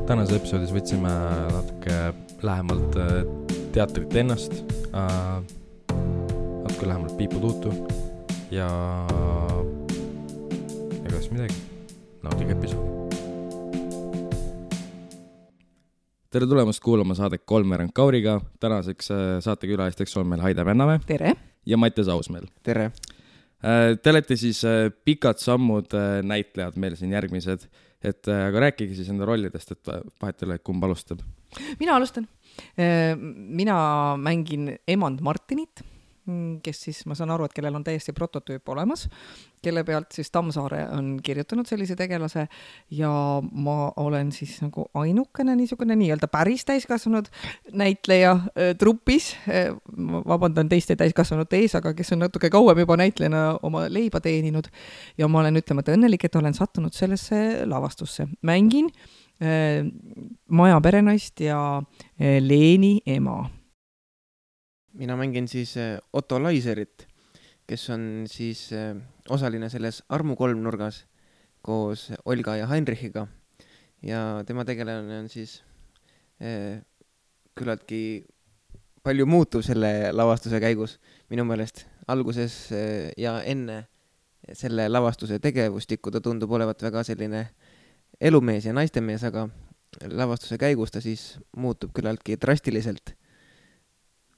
Tänases episoodis võtsime natuke lähemalt teatrit ennast, natuke lähemalt Piipu Tuutu ja ega siis midagi, nautige episoodi. Tere tulemast kuulama saadet Kolmveerand Kauriga. Tänaseks saatekülalisteks on meil Haide Vennamäe. Tere. Ja Mattias Ausmäel. Tere. Te olete siis pikad sammud näitlejad meil siin järgmised. Aga rääkige siis enda rollidest, et vahet ei ole, kumb alustab. Mina alustan. Mina mängin emand Martinit, kes siis, ma saan aru, et kellel on täiesti prototüüp olemas, kelle pealt siis Tammsaare on kirjutanud sellise tegelase ja ma olen siis nagu ainukene niisugune nii-öelda päris täiskasvanud näitleja trupis. Vabandan teiste täiskasvanud ees, aga kes on natuke kauem juba näitlejana oma leiba teeninud ja ma olen ütlemata õnnelik, et olen sattunud sellesse lavastusse. Mängin Maja perenaist ja Leeni ema. Mina mängin siis Otto Laiserit, kes on siis osaline selles Armu kolmnurgas koos Olga ja Heinrichiga. Ja tema tegelane on siis küllaltki palju muutuv selle lavastuse käigus minu meelest. Alguses ja enne selle lavastuse tegevustikku ta tundub olevat väga selline elumees ja naistemees, aga lavastuse käigus ta siis muutub küllaltki drastiliselt.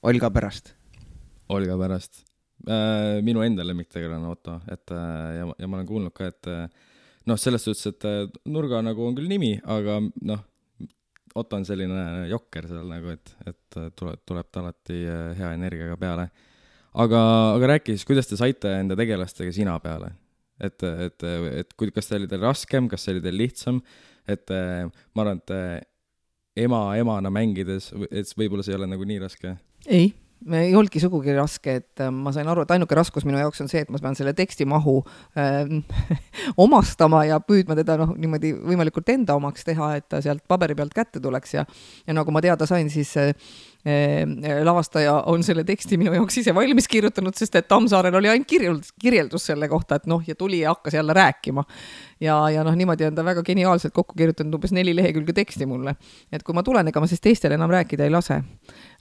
Olga pärast. Olga pärast. Minu enda lemmiktegelane Otto. Ja ma olen kuulnud ka, et selles suhtes, et nurga nagu on küll nimi, aga Otto on selline jokker seal nagu, et tuleb ta alati hea energiaga peale. Aga rääki siis, kuidas te saite enda tegelastega sina peale? Et kas see oli teil raskem, kas see oli teil lihtsam? Ma arvan, et emana mängides, et võib-olla see ei ole nagu nii raske. Ei olnudki sugugi raske, et ma sain aru, et ainuke raskus minu jaoks on see, et ma pean selle teksti mahu omastama ja püüdma teda niimoodi võimalikult enda omaks teha, et ta sealt paberi pealt kätte tuleks ja nagu ma teada sain, siis lavastaja on selle teksti minu jaoks ise valmis kirjutanud, sest et Tammsaarel oli ainult kirjeldus selle kohta, et ja tuli ja hakkas jälle rääkima. Ja niimoodi on ta väga geniaalselt kokku kirjutanud umbes 4 lehekülge teksti mulle. Et kui ma tulen, ega ma siis teistele enam rääkida ei lase.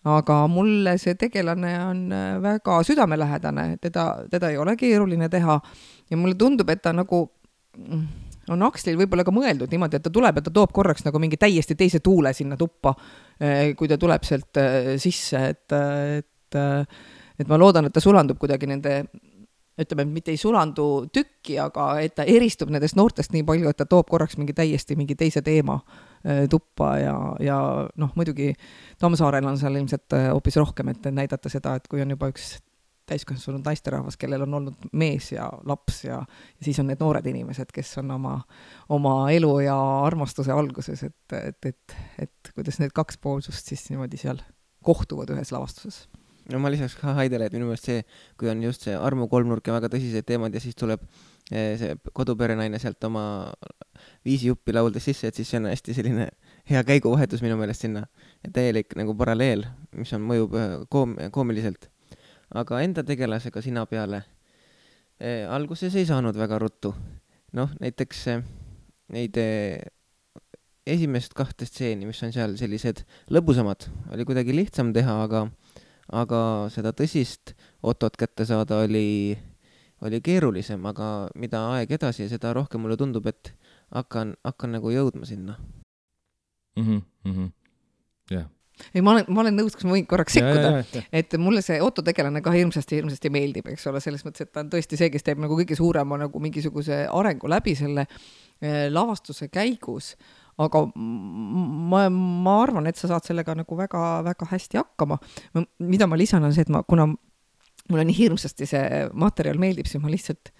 Aga mulle see tegelane on väga südamelähedane, teda ei ole keeruline teha ja mulle tundub, et ta nagu on Akslil võib-olla ka mõeldud niimoodi, et ta tuleb ja ta toob korraks nagu mingi täiesti teise tuule sinna tuppa, kui ta tuleb sealt sisse, et ma loodan, et ta sulandub kuidagi nende, ütleme, mitte ei sulandu tükki, aga et ta eristub nendest noortest nii palju, et ta toob korraks mingi teise teema tuppa ja muidugi Tammsaarel on seal ilmselt hoopis rohkem, et näidata seda, et kui on juba üks täiskasvanud naisterahvas, kellel on olnud mees ja laps ja siis on need noored inimesed, kes on oma elu ja armastuse alguses, et kuidas need kaks poolsust siis niimoodi seal kohtuvad ühes lavastuses. No ma lisaks ka Haidele, et minu meelest see, kui on just see Armu kolmnurk ja väga tõsised teemad ja siis tuleb see koduperenaine sealt oma viisijuppi lauldes sisse, et siis see on hästi selline hea käiguvahetus minu meelest sinna. Täielik nagu paralleel, mis on mõjub koomiliselt. Aga enda tegelasega sina peale alguses ei saanud väga ruttu. Näiteks neid esimest 2 stseeni, mis on seal sellised lõbusamad, oli kuidagi lihtsam teha, aga seda tõsist Otot kätte saada oli keerulisem, aga mida aeg edasi ja seda rohkem mulle tundub, et hakkan nagu jõudma sinna. Jah. Ei, ma olen nõus, kas ma võin korraks sekkuda, et mulle see Otto tegelane ka hirmsasti meeldib, eks ole, selles mõttes, et ta on tõesti see, kes teeb nagu kõige suurema nagu mingisuguse arengu läbi selle lavastuse käigus, aga ma arvan, et sa saad sellega nagu väga, väga hästi hakkama. Mida ma lisan on see, et kuna mulle nii hirmsasti see materjal meeldib, siis ma lihtsalt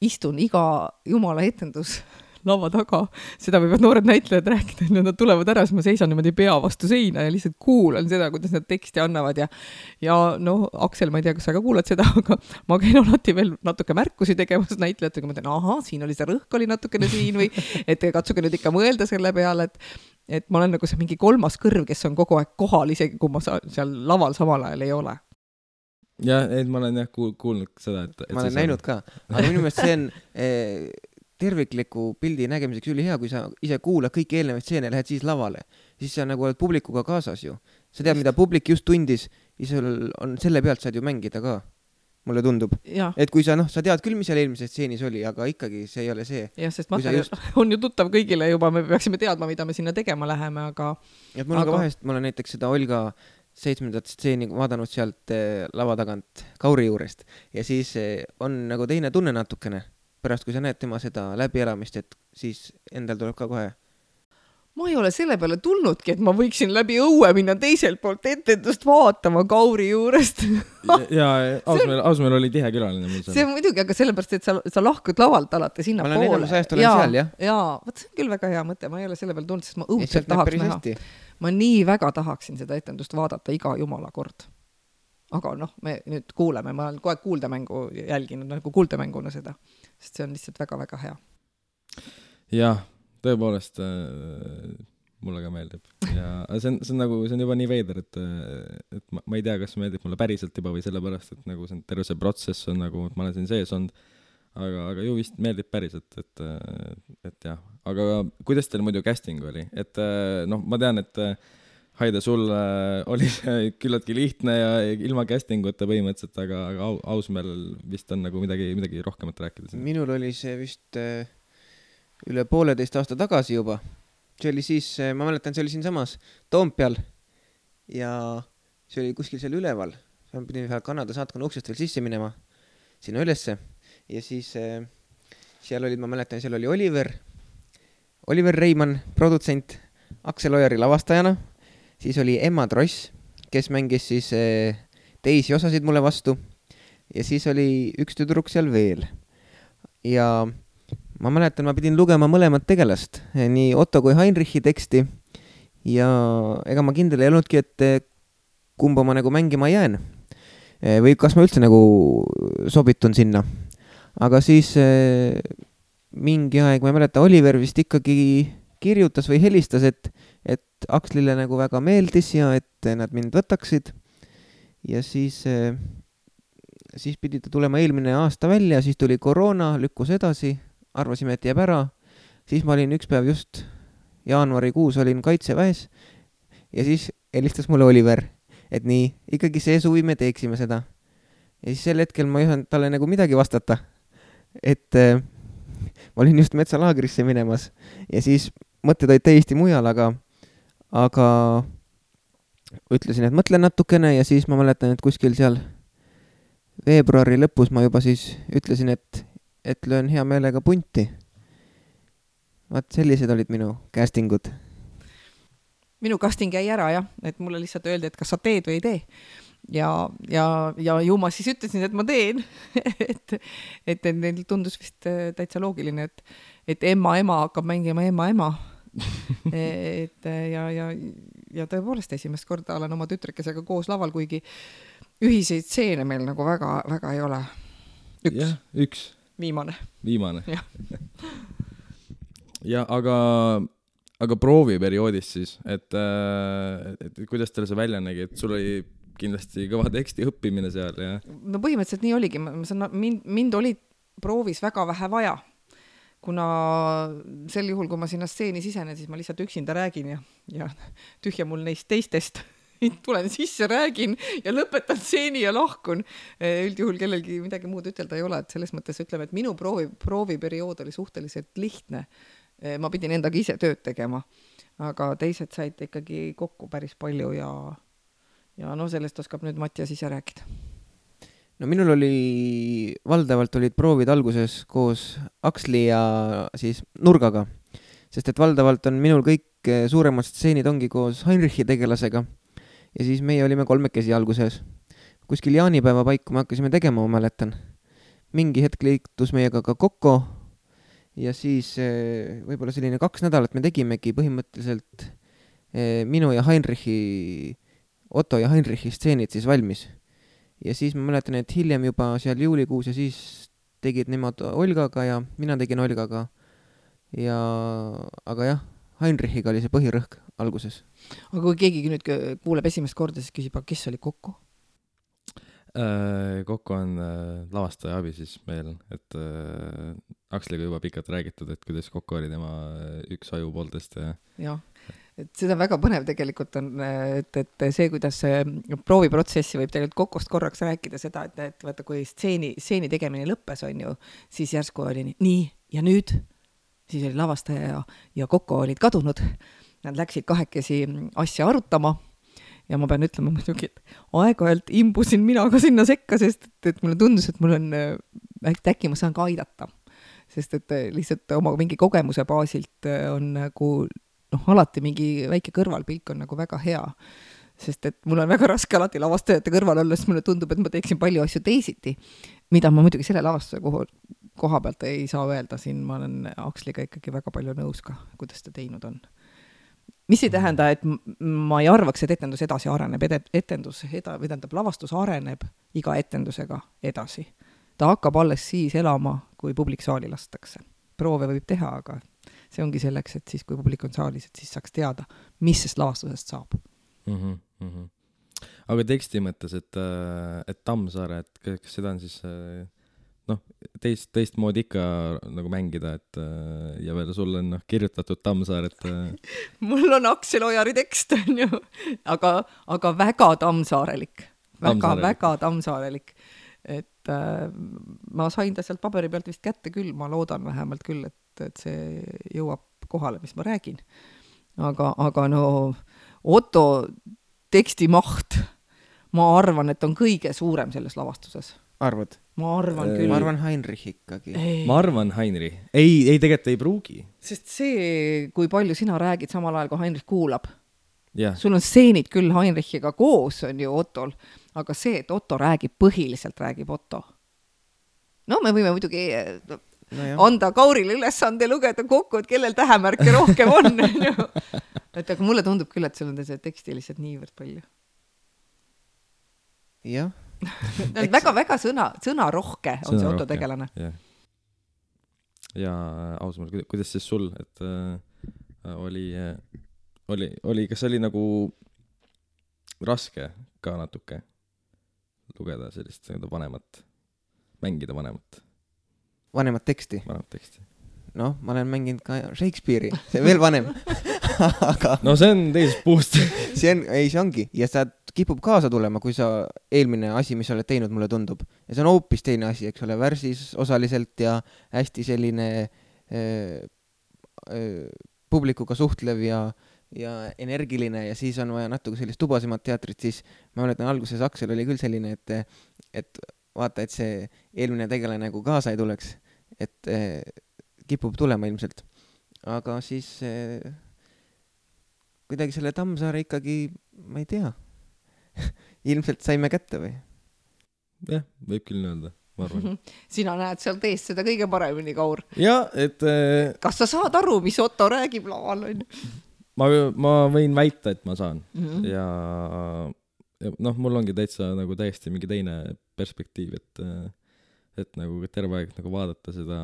istun iga jumala etendus lava taga, seda võivad noored näitlejad rääkida, et nad tulevad ära, siis ma seisan niimoodi pea vastu seina ja lihtsalt kuulan seda, kuidas nad teksti annavad ja Aksel, ma ei tea, kas sa ka kuulad seda, aga ma käin alati veel natuke märkusi tegemas näitlejatega, ma tean, siin oli see rõhk oli natukene siin või et katsuge nüüd ikka mõelda selle peale, et ma olen nagu see mingi 3. kõrv, kes on kogu aeg kohal, isegi kui ma seal laval samal ajal ei ole. Ja, et ma olen kuulnud seda, et ma olen näinud ka, aga minu meelest see on tervikliku pildi nägemiseks ülihea, kui sa ise kuulad kõiki eelnevaid stseene ja lähed siis lavale. Siis sa nagu oled publikuga kaasas ju. Sa tead, mida publik just tundis ja sul on selle pealt saad ju mängida ka. Mulle tundub. Et kui sa, sa tead küll, mis seal eelmises stseenis oli, aga ikkagi see ei ole see. Jah, sest materjal on ju tuttav kõigile juba, me peaksime teadma, mida me sinna tegema läheme, aga... Et mul on ka vahest, ma olen näiteks seda Olga 7. stseeni vaadanud sealt lava tagant Kauri juurest ja siis on nagu teine tunne natukene. Pärast, kui sa näed tema seda läbielamist, et siis endal tuleb ka kohe. Ma ei ole selle peale tulnudki, et ma võiksin läbi õue minna teiselt poolt etendust vaatama Kauri juurest. ja Ausmäel oli tihe külaline. See on muidugi, aga sellepärast, et sa lahkud lavalt alati sinna poole. Ma olen enamus ajast olen seal, jah? Jaa, võt see on küll väga hea mõte, ma ei ole selle peale tulnud, sest ma õudselt tahaks näha. Ma nii väga tahaksin seda etendust vaadata iga jumala kord. Aga me nüüd kuuleme, ma olen kogu aeg kuuldemängu jälginud, nagu kuuldemänguna seda, sest see on lihtsalt väga-väga hea. Jah. Tõepoolest mulle ka meeldib ja see on nagu, see on juba nii veider, et ma ei tea, kas meeldib mulle päriselt juba või sellepärast, et nagu see terve see protsess on nagu, et ma olen siin sees olnud, aga ju vist meeldib päriselt, et jah. Aga kuidas teil muidu casting oli? Et ma tean, et Haide, sul oli see küllaltki lihtne ja ilma castinguta põhimõtteliselt, aga Ausmäel vist on nagu midagi rohkemat rääkida. Minul oli see vist... üle 1,5 aasta tagasi juba. See oli siis, ma mäletan, see oli siin samas Toompeal ja see oli kuskil seal üleval. Ma pidin Kanada saatkonna uksest veel sisse minema sinna ülesse ja siis seal olid, ma mäletan, seal oli Oliver Reimann, produtsent, Aksel Ojari lavastajana, siis oli Emma Tross, kes mängis siis teisi osasid mulle vastu ja siis oli üks tüdruk seal veel ja ma mäletan, ma pidin lugema mõlemat tegelast, nii Otto kui Heinrichi teksti ja ega ma kindel ei olnudki, et kumba ma nagu mängima jään või kas ma üldse nagu sobitun sinna. Aga siis mingi aeg, ma ei mäleta, Oliver vist ikkagi kirjutas või helistas, et Akslile nagu väga meeldis ja et nad mind võtaksid ja siis pidi ta tulema eelmine aasta välja, siis tuli koroona, lükkus edasi, arvasime, et jääb ära, siis ma olin üks päev just jaanuarikuus olin Kaitseväes ja siis helistas mulle Oliver, et nii, ikkagi see suvi me teeksime seda. Ja siis sel hetkel ma ei osanud talle nagu midagi vastata, et ma olin just metsalaagrisse minemas ja siis mõtted olid täiesti mujal, aga ütlesin, et mõtlen natukene ja siis ma mäletan, et kuskil seal veebruari lõpus ma juba siis ütlesin, et löön hea meelega punti. Vaat sellised olid minu castingud. Minu casting jäi ära, jah, et mulle lihtsalt öeldi, et kas sa teed või ei tee. Ja ju ma siis ütlesin, et ma teen. et neil tundus vist täitsa loogiline, et ema hakkab mängima ema. ja tõepoolest esimest korda olen oma tütrekesega koos laval, kuigi ühiseid stseene meil nagu väga, väga ei ole. Üks. Viimane. Ja aga prooviperioodis siis, et kuidas teil see välja nägi, et sul oli kindlasti kõva teksti õppimine seal ja... No põhimõtteliselt nii oligi, mind oli proovis väga vähe vaja, kuna sel juhul, kui ma sinna stseeni sisenen, siis ma lihtsalt üksinda räägin ja tühja mul neist teistest tulen sisse, räägin ja lõpetan stseeni ja lahkun. Üldjuhul kellelgi midagi muud ütelda ei ole, et selles mõttes ütleme, et minu prooviperiood oli suhteliselt lihtne. Ma pidin endaga ise tööd tegema, aga teised said ikkagi kokku päris palju ja sellest oskab nüüd Mattias ise rääkida. No minul oli, valdavalt olid proovid alguses koos Aksli ja siis Nurgaga, sest et valdavalt on minul kõik suuremad stseenid ongi koos Heinrichi tegelasega. Ja siis meie olime 3 alguses. Kuskil jaanipäeva paiku me hakkasime tegema, ma mäletan. Mingi hetk liitus meiega ka Kokko ja siis võib-olla selline 2 nädalat me tegimegi põhimõtteliselt minu ja Heinrichi, Otto ja Heinrichi stseenid siis valmis. Ja siis ma mäletan, et hiljem juba seal juulikuus ja siis tegid nemad Olgaga ja mina tegin Olgaga. Aga jah, Heinrichiga oli see põhirõhk alguses. Aga kui keegi nüüd kuuleb esimest korda, siis küsib, kes oli Kokko? Kokku on lavastaja abi siis meil, et Aksliga juba pikalt räägitud, et kuidas Kokku oli tema üks ajupooltest ja jah, et seda väga põnev tegelikult on, et see, kuidas prooviprotsessi võib tegelikult Kokost korraks rääkida seda, et vaata, kui stseeni tegemine lõppes, on ju, siis järsku oli nii ja nüüd, siis oli lavastaja ja Kokko olid kadunud. Nad läksid kahekesi asja arutama ja ma pean ütlema muidugi, et aeg-ajalt imbusin mina ka sinna sekka, sest et mulle tundus, et mul on, äkki ma saan ka aidata. Sest et lihtsalt oma mingi kogemuse baasilt on nagu, alati mingi väike kõrvalpilk on nagu väga hea. Sest et mul on väga raske alati lavastajate kõrval olla, sest mulle tundub, et ma teeksin palju asju teisiti, mida ma muidugi selle lavastuse koha pealt ei saa öelda. Siin ma olen Aksliga ikkagi väga palju nõus ka, kuidas ta teinud on. Mis ei tähenda, et ma ei arvaks, et etendus edasi areneb, lavastus areneb iga etendusega edasi. Ta hakkab alles siis elama, kui publik saali lastakse. Proove võib teha, aga see ongi selleks, et siis, kui publik on saalis, et siis saaks teada, mis sest lavastusest saab. Aga teksti mõttes, et Tammsaare, et kas seda on siis teist moodi ikka nagu mängida, et ja veel sul on kirjutatud Tammsaar, et mul on Aksel Ojari tekst, on ju, aga väga tammsaarelik. Väga tammsaarelik. Et ma sain ta sealt paberi pealt vist kätte küll, ma loodan vähemalt küll, et see jõuab kohale, mis ma räägin. Aga no Otto teksti maht, ma arvan, et on kõige suurem selles lavastuses. Arvad? Ma arvan küll. Ma arvan Heinrich ikkagi. Ma arvan Heinrich. Ei, tegelikult ei pruugi. Sest see, kui palju sina räägid samal ajal, kui Heinrich kuulab. Yeah. Sul on stseenid küll Heinrichiga koos, on ju Ottol, aga see, et Otto põhiliselt räägib Otto. No me võime muidugi anda Kaurile ülesande lugeda kokku, et kellel tähemärke rohkem on. Et aga mulle tundub küll, et sul on see teksti lihtsalt niivõrd palju. Jah. väga sõnarohke on see Otto tegelane. Ja ausalt, kuidas siis sul, et oli, kas oli nagu raske ka natuke lugeda sellist vanemat, mängida vanemat teksti? Vanemat teksti. Noh, ma olen mänginud ka Shakespeare'i, see veel vanem. Aga no see on teisest puust. see ongi. Ja sa kipub kaasa tulema, kui sa eelmine asi, mis sa oled teinud, mulle tundub. Ja see on hoopis teine asi, eks ole, värsis osaliselt ja hästi selline publikuga suhtlev ja energiline ja siis on vaja natuke sellist tubasemat teatrit, siis ma mäletan alguses Aksel oli küll selline, et vaata, et see eelmine tegelane nagu kaasa ei tuleks, et kipub tulema ilmselt. Aga siis kuidagi selle Tammsaare ikkagi, ma ei tea, ilmselt saime kätte või? Jah, võib küll öelda, ma arvan. Sina näed seal teist seda kõige paremini, Kaur. Ja, et kas sa saad aru, mis Otto räägib laval? Ma võin väita, et ma saan. Ja mul ongi nagu täiesti mingi teine perspektiiv, et nagu terve aeg nagu vaadata seda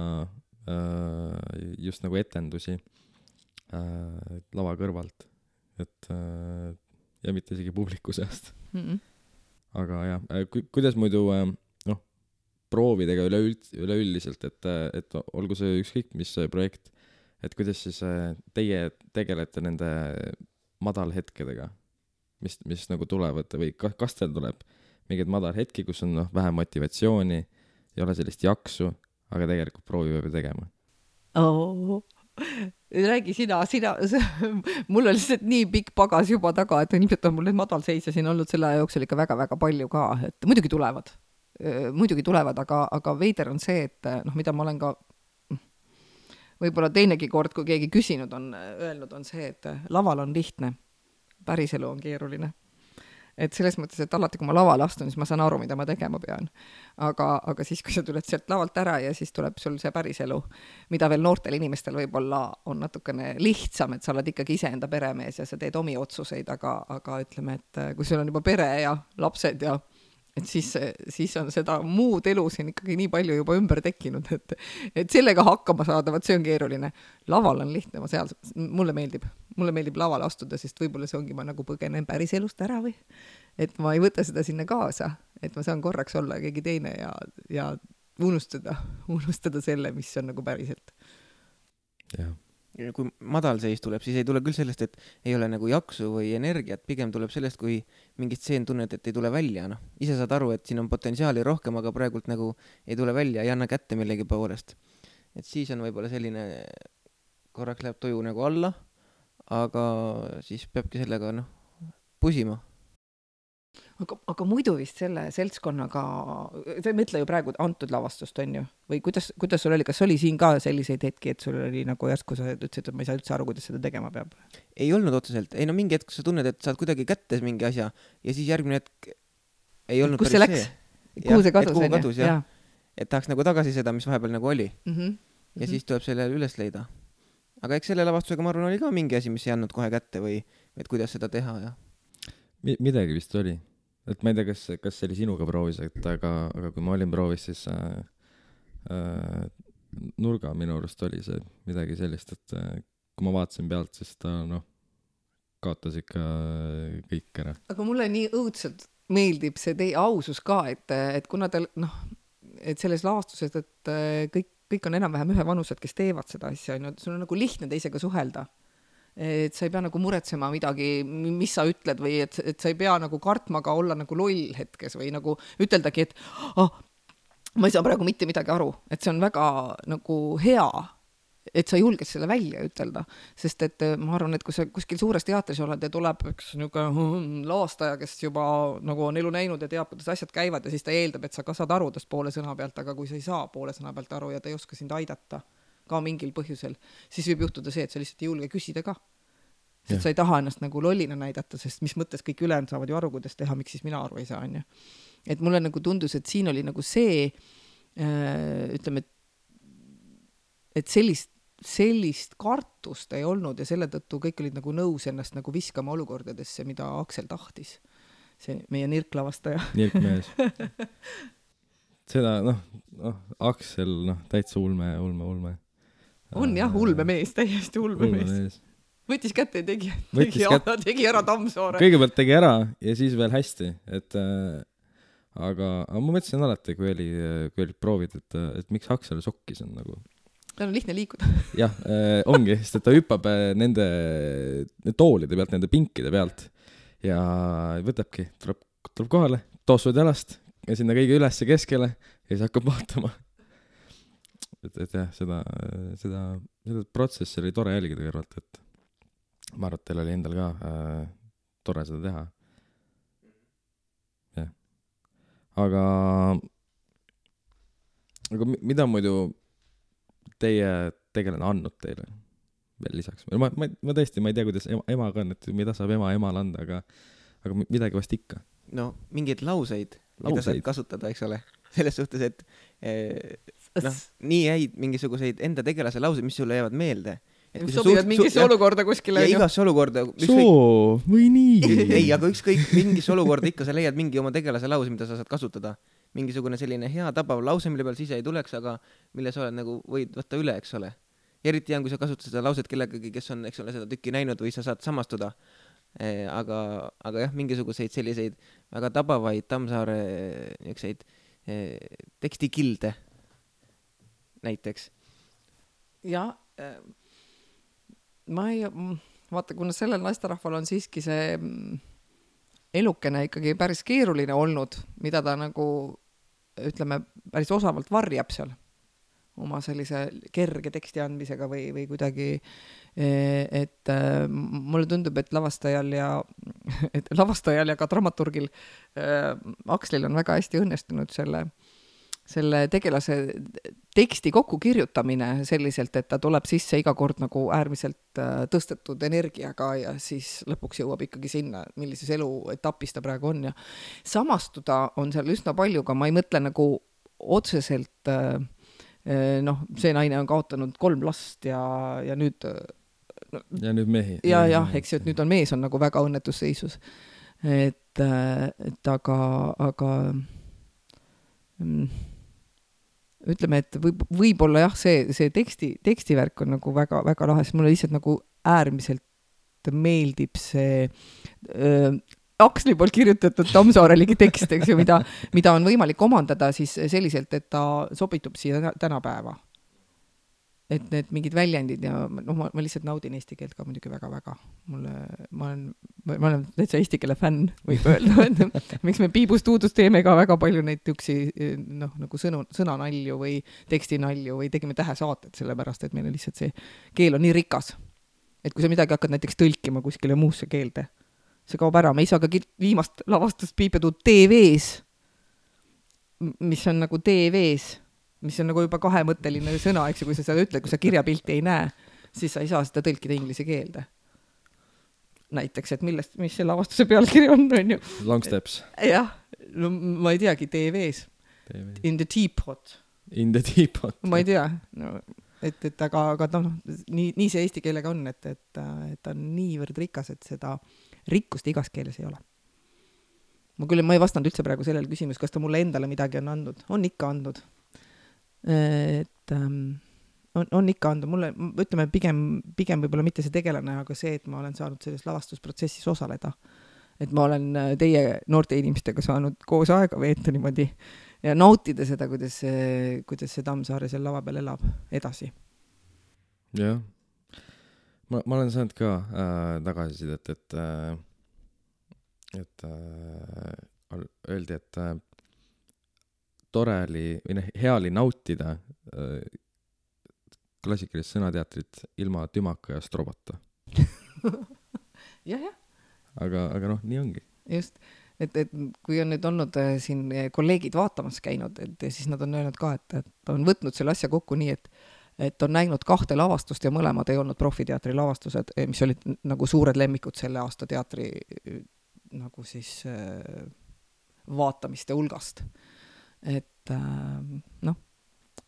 just nagu etendusi lava kõrvalt, et ja mitte isegi publiku seast. Aga jah, kuidas muidu proovidega üleüldiselt, et olgu see ükskõik mis projekt, et kuidas siis teie tegelete nende madalhetkedega, mis nagu tulevad või kas teil tuleb mingid madalhetki, kus on vähe motivatsiooni, ei ole sellist jaksu, aga tegelikult proovi peab tegema. Räägi sina, mul on lihtsalt nii pikk pagas juba taga, et ilmselt on mul need madalseisja siin olnud selle aja jooksul ikka väga-väga palju ka, et muidugi tulevad, aga veider on see, et mida ma olen ka võib-olla teinegi kord, kui keegi küsinud on, öelnud on see, et laval on lihtne, päriselu on keeruline. Et selles mõttes, et alati, kui ma lavale astun, siis ma saan aru, mida ma tegema pean. Aga siis, kui sa tuled sealt lavalt ära ja siis tuleb sul see päriselu, mida veel noortel inimestel võib-olla on natukene lihtsam, et sa oled ikkagi iseenda peremees ja sa teed omi otsuseid, aga ütleme, et kui sul on juba pere ja lapsed ja et siis on seda muud elu siin ikkagi nii palju juba ümber tekkinud, et sellega hakkama saada, see on keeruline. Laval on lihtne, mulle meeldib lavale astuda, sest võib-olla see ongi ma nagu põgenen päris elust ära või, et ma ei võta seda sinna kaasa, et ma saan korraks olla keegi teine ja unustada selle, mis on nagu päriselt. jah. Kui madal seis tuleb, siis ei tule küll sellest, et ei ole nagu jaksu või energiat, pigem tuleb sellest, kui mingit stseen tunned, et ei tule välja, noh. Ise saad aru, et siin on potentsiaali rohkem, aga praegult nagu ei tule välja, ei anna kätte millegi poolest. Et siis on võib-olla selline, korraks läheb tuju nagu alla, aga siis peabki sellega, pusima. Aga muidu vist selle seltskonnaga, sa ei mõtle ju praegu antud lavastust, on ju? Või kuidas sul oli, kas oli siin ka selliseid hetki, et sul oli nagu järsku sa ütlesid, et ma ei saa üldse aru, kuidas seda tegema peab? Ei olnud otseselt. Ei mingi hetk sa tunned, et saad kuidagi kätte mingi asja ja siis järgmine hetk ei olnud kus see läks? Kuhu see kadus? Ja. Et tahaks nagu tagasi seda, mis vahepeal nagu oli. Ja siis tuleb selle üles leida. Aga eks selle lavastusega ma arvan oli ka mingi asi, mis ei andnud kohe kätte või et kuidas seda teha ja midagi vist oli, et ma ei tea, kas see oli sinuga proovis, aga kui ma olin proovis, siis nurga minu arust oli see midagi sellist, et kui ma vaatasin pealt, siis ta kaotas ikka kõik ära. Aga mulle nii õudselt meeldib see teie ausus ka, et kuna te et selles lavastuses, et kõik on enam-vähem ühe vanused, kes teevad seda asja, sul on nagu lihtne teisega suhelda. Et sa ei pea nagu muretsema midagi, mis sa ütled või et sa ei pea nagu kartma ka olla nagu loll hetkes või nagu üteldagi, et ma ei saa praegu mitte midagi aru, et see on väga nagu hea, et sa julged selle välja ütelda, sest et ma arvan, et kui sa kuskil suures teatris oled ja tuleb üks lavastaja, kes juba nagu on elu näinud ja teab, kuidas asjad käivad ja siis ta eeldab, et sa ka saad aru tast poole sõna pealt, aga kui sa ei saa poole sõna pealt aru ja ta ei oska sind aidata ka mingil põhjusel, siis võib juhtuda see, et sa lihtsalt ei julge küsida ka. Sest sa ei taha ennast nagu lollina näidata, sest mis mõttes kõik ülejäänud saavad ju aru, kuidas teha, miks siis mina aru ei saa, on ju. Et mulle nagu tundus, et siin oli nagu see, ütleme, et sellist kartust ei olnud ja selle tõttu kõik olid nagu nõus ennast nagu viskama olukordadesse, mida Aksel tahtis. See meie nirklavastaja. Nirkmees. Seda, Aksel, täitsa ulme. On jah, ulmemees, täiesti ulmemees. Võttis kätte ja tegi ära Tammsaare. Kõigepealt tegi ära ja siis veel hästi, et aga ma mõtlesin alati, kui olid proovid, et miks Aksel sokkis on nagu. Ta on lihtne liikuda. Jah, ongi, sest et ta hüppab nende toolide pealt, nende pinkide pealt ja võtabki, tuleb kohale, toosud jalast ja sinna kõige üles keskele ja siis hakkab vaatama. Et jah, seda protsessi oli tore jälgida kõrvalt, et ma arvan, et teil oli endal ka tore seda teha. Jah. Aga mida muidu teie tegelane andnud teile veel lisaks? Ma tõesti, ma ei tea, kuidas ema ka on, et mida saab emal anda, aga midagi vast ikka. No, mingeid lauseid. Mida saab kasutada, eks ole. Selles suhtes, et nii jäid mingisuguseid enda tegelase lauseid, mis sulle jäävad meelde. Mis sobivad mingisse olukorda kuskile. Ja igasse olukorda. Soo, või nii. Ei, aga ükskõik mingisse olukorda ikka sa leiad mingi oma tegelase lause, mida sa saad kasutada. Mingisugune selline hea tabav lause, mille peal siis ei tuleks, aga mille sa oled nagu võid võtta üle, eks ole. Ja eriti on, kui sa kasutad seda lauset kellegagi, kes on, eks ole, seda tükki näinud või sa saad samastuda. Aga jah, mingisuguseid selliseid väga tabavaid Tammsaare niukseid tekstikilde näiteks. Ja ma ei vaata, kuna sellel naisterahval on siiski see elukene ikkagi päris keeruline olnud, mida ta nagu, ütleme, päris osavalt varjab seal oma sellise kerge teksti andmisega või kuidagi, et mulle tundub, et lavastajal ja ka dramaturgil Akslil on väga hästi õnnestunud selle tegelase teksti kokku kirjutamine selliselt, et ta tuleb sisse iga kord nagu äärmiselt tõstetud energiaga ja siis lõpuks jõuab ikkagi sinna, millises eluetapis ta praegu on ja samastuda on seal üsna palju, aga ma ei mõtle nagu otseselt see naine on kaotanud 3 last ja nüüd ja nüüd mehi. Ja, eks ju, et nüüd on mees on nagu väga õnnetus seisus. Et aga ütleme, et võib-olla jah, see tekstivärk on nagu väga, väga lahe, sest mulle lihtsalt nagu äärmiselt meeldib see Aksli poolt kirjutatud Tammsaareligi tekst, eks ju, mida on võimalik omandada siis selliselt, et ta sobitub siia tänapäeva. Et need mingid väljendid ja ma lihtsalt naudin eesti keelt ka muidugi väga-väga. Ma olen täitsa eesti keele fänn, võib öelda. Miks me Piibust uudust teeme ka väga palju neid üksi nagu sõnanalju või tekstinalju või tegime tähesaated, sellepärast, et meil on lihtsalt see keel on nii rikas. Et kui sa midagi hakkad näiteks tõlkima kuskile muusse keelde, see kaob ära. Me ei saa ka viimast lavastust Piipetuud TV-s, mis on nagu TV-s, mis on nagu juba kahemõtteline sõna, eks ju, kui sa seda ütled, kui sa kirjapilti ei näe, siis sa ei saa seda tõlkida inglise keelde. Näiteks, et mis see lavastuse pealkiri on ju? Long Steps. Jah, no ma ei teagi, TV-s. In the teapot. In the teapot. Ma ei tea, no, aga nii see eesti keelega on, et ta on niivõrd rikas, et seda rikkust igas keeles ei ole. Ma ei vastanud üldse praegu sellele küsimus, kas ta mulle endale midagi on andnud. On ikka andnud. Et on ikka andnud. Mulle, ütleme, pigem võib-olla mitte see tegelane, aga see, et ma olen saanud selles lavastusprotsessis osaleda. Et ma olen teie noorte inimestega saanud koos aega veeta niimoodi ja nautida seda, kuidas see Tammsaare seal lava peal elab edasi. Jah. Ma olen saanud ka tagasisidet, et öeldi, et tore oli, või hea oli nautida klassikalist sõnateatrit ilma tümaka ja strobata. jah. Aga nii ongi. Just, et kui on nüüd olnud siin kolleegid vaatamas käinud, et siis nad on öelnud ka, et on võtnud selle asja kokku nii, et on näinud 2 lavastust ja mõlemad ei olnud profiteatri lavastused, mis olid nagu suured lemmikud selle aasta teatri nagu siis vaatamiste hulgast. Et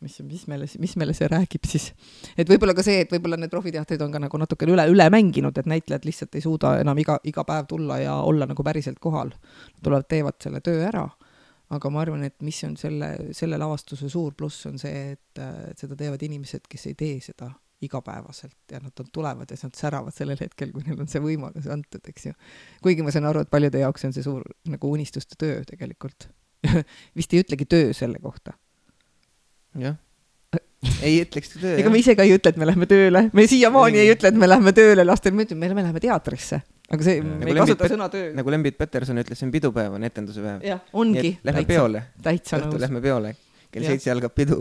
mis meile see räägib siis. Et võib-olla ka see, et võib-olla need profiteatrid on ka nagu natuke üle mänginud, et näitlejad lihtsalt ei suuda enam iga päev tulla ja olla nagu päriselt kohal. Tulevad, teevad selle töö ära. Aga ma arvan, et mis on selle lavastuse suur pluss on see, et seda teevad inimesed, kes ei tee seda igapäevaselt ja nad tulevad ja nad säravad sellel hetkel, kui neil on see võimalus antud, eks ju. Kuigi ma saan aru, et paljude jaoks on see suur nagu unistuste töö tegelikult. Vist ei ütlegi töö selle kohta. Jah. Ei ütleks töö. Ega me ise ka ei ütle, et me lähme tööle. Me siiamaani ei ütle, et me lähme tööle lastel. Me ütleme, me läheme teatrisse. Aga see, me ei kasuta sõna töö. Nagu Lembit Peterson ütles, see on pidupäev, on etenduse päev. Jah, ongi. Lähme peole. Täitsa nõus. Lähme peole. Kell 7 algab pidu.